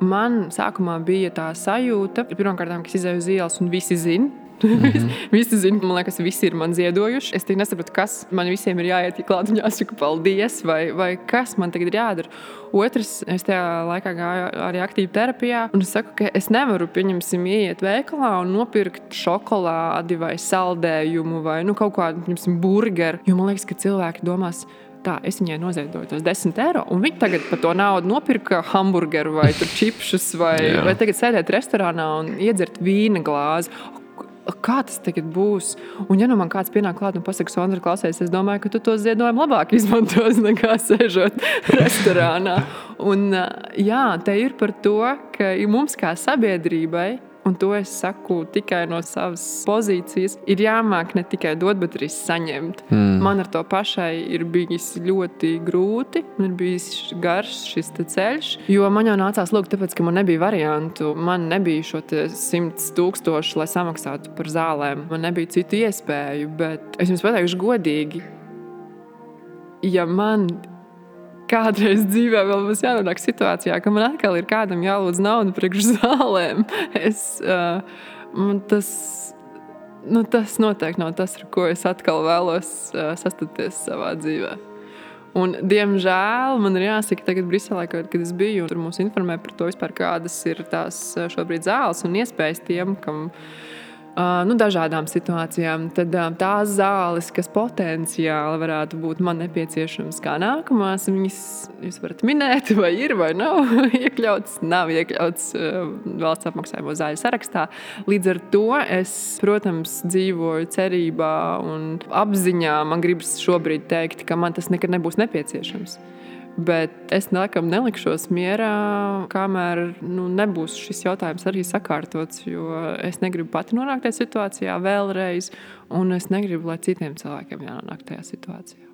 man sākumā bija tā sajūta, pirmkārt, kas izēja uz ielas un visi zina. Visi zina, man liekas, visi ir man ziedojuši. Es nesapratu, kas man visiem ir jāiet klāt un jāsaka paldies, vai kas man tagad ir jādara. Otrs, es tajā laikā gāju arī aktīvi terapijā, un es saku, ka es nevaru, pieņemsim, ieiet veikalā un nopirkt šokolādi vai saldējumu vai kaut kādu, pieņemsim, burgeru, jo man liekas, ka cilvēki domās, tā, es viņai noziedoju tos 10 eiro, un viņi tagad par to naudu nopirka hamburgeru vai tur čipšus, vai tagad sēdēt restorānā un iedzert vīna glāzi. Kā tas tagad būs? Un ja man kāds pienāk klāt un pasaka, Sondra, klausies, es domāju, ka tu to ziedojumu labāk izmantos nekā sēžot restorānā. Un te ir par to, ka mums kā sabiedrībai, un to es saku tikai no savas pozīcijas, ir jāmāk ne tikai dot, bet arī saņemt. Man ar to pašai ir bijis ļoti grūti, man ir bijis garš šis ceļš, jo man jau nācās lūgt, tāpēc, ka man nebija variantu, man nebija šo 100,000, lai samaksātu par zālēm, man nebija citu iespēju, bet es jums pateikšu godīgi, ja man kādreiz dzīvē vēl būs jānonāk situācijā, ka man atkal ir kādam jālūdz naudu priekš zālēm. tas noteikti nav tas, ar ko es atkal vēlos sastapties savā dzīvē. Un, diemžēl man ir jāsaka, tagad Briselē, kad es biju, tur mūs informē par to vispār, kādas ir tās šobrīd zāles un iespējas tiem, kam dažādām situācijām. Tad tās zāles, kas potenciāli varētu būt man nepieciešamas kā nākamās, viņas jūs varat minēt, vai ir vai nav iekļauts, nav iekļauts valsts apmaksājumu zāļu sarakstā. Līdz ar to es, protams, dzīvoju cerībā un apziņā. Man gribas šobrīd teikt, ka man tas nekad nebūs nepieciešams. Bet es nelikšos mierā, kamēr nebūs šis jautājums arī sakārtots, jo es negribu pati nonākt tajā situācijā vēlreiz, un es negribu, lai citiem cilvēkiem jānonāk tajā situācijā.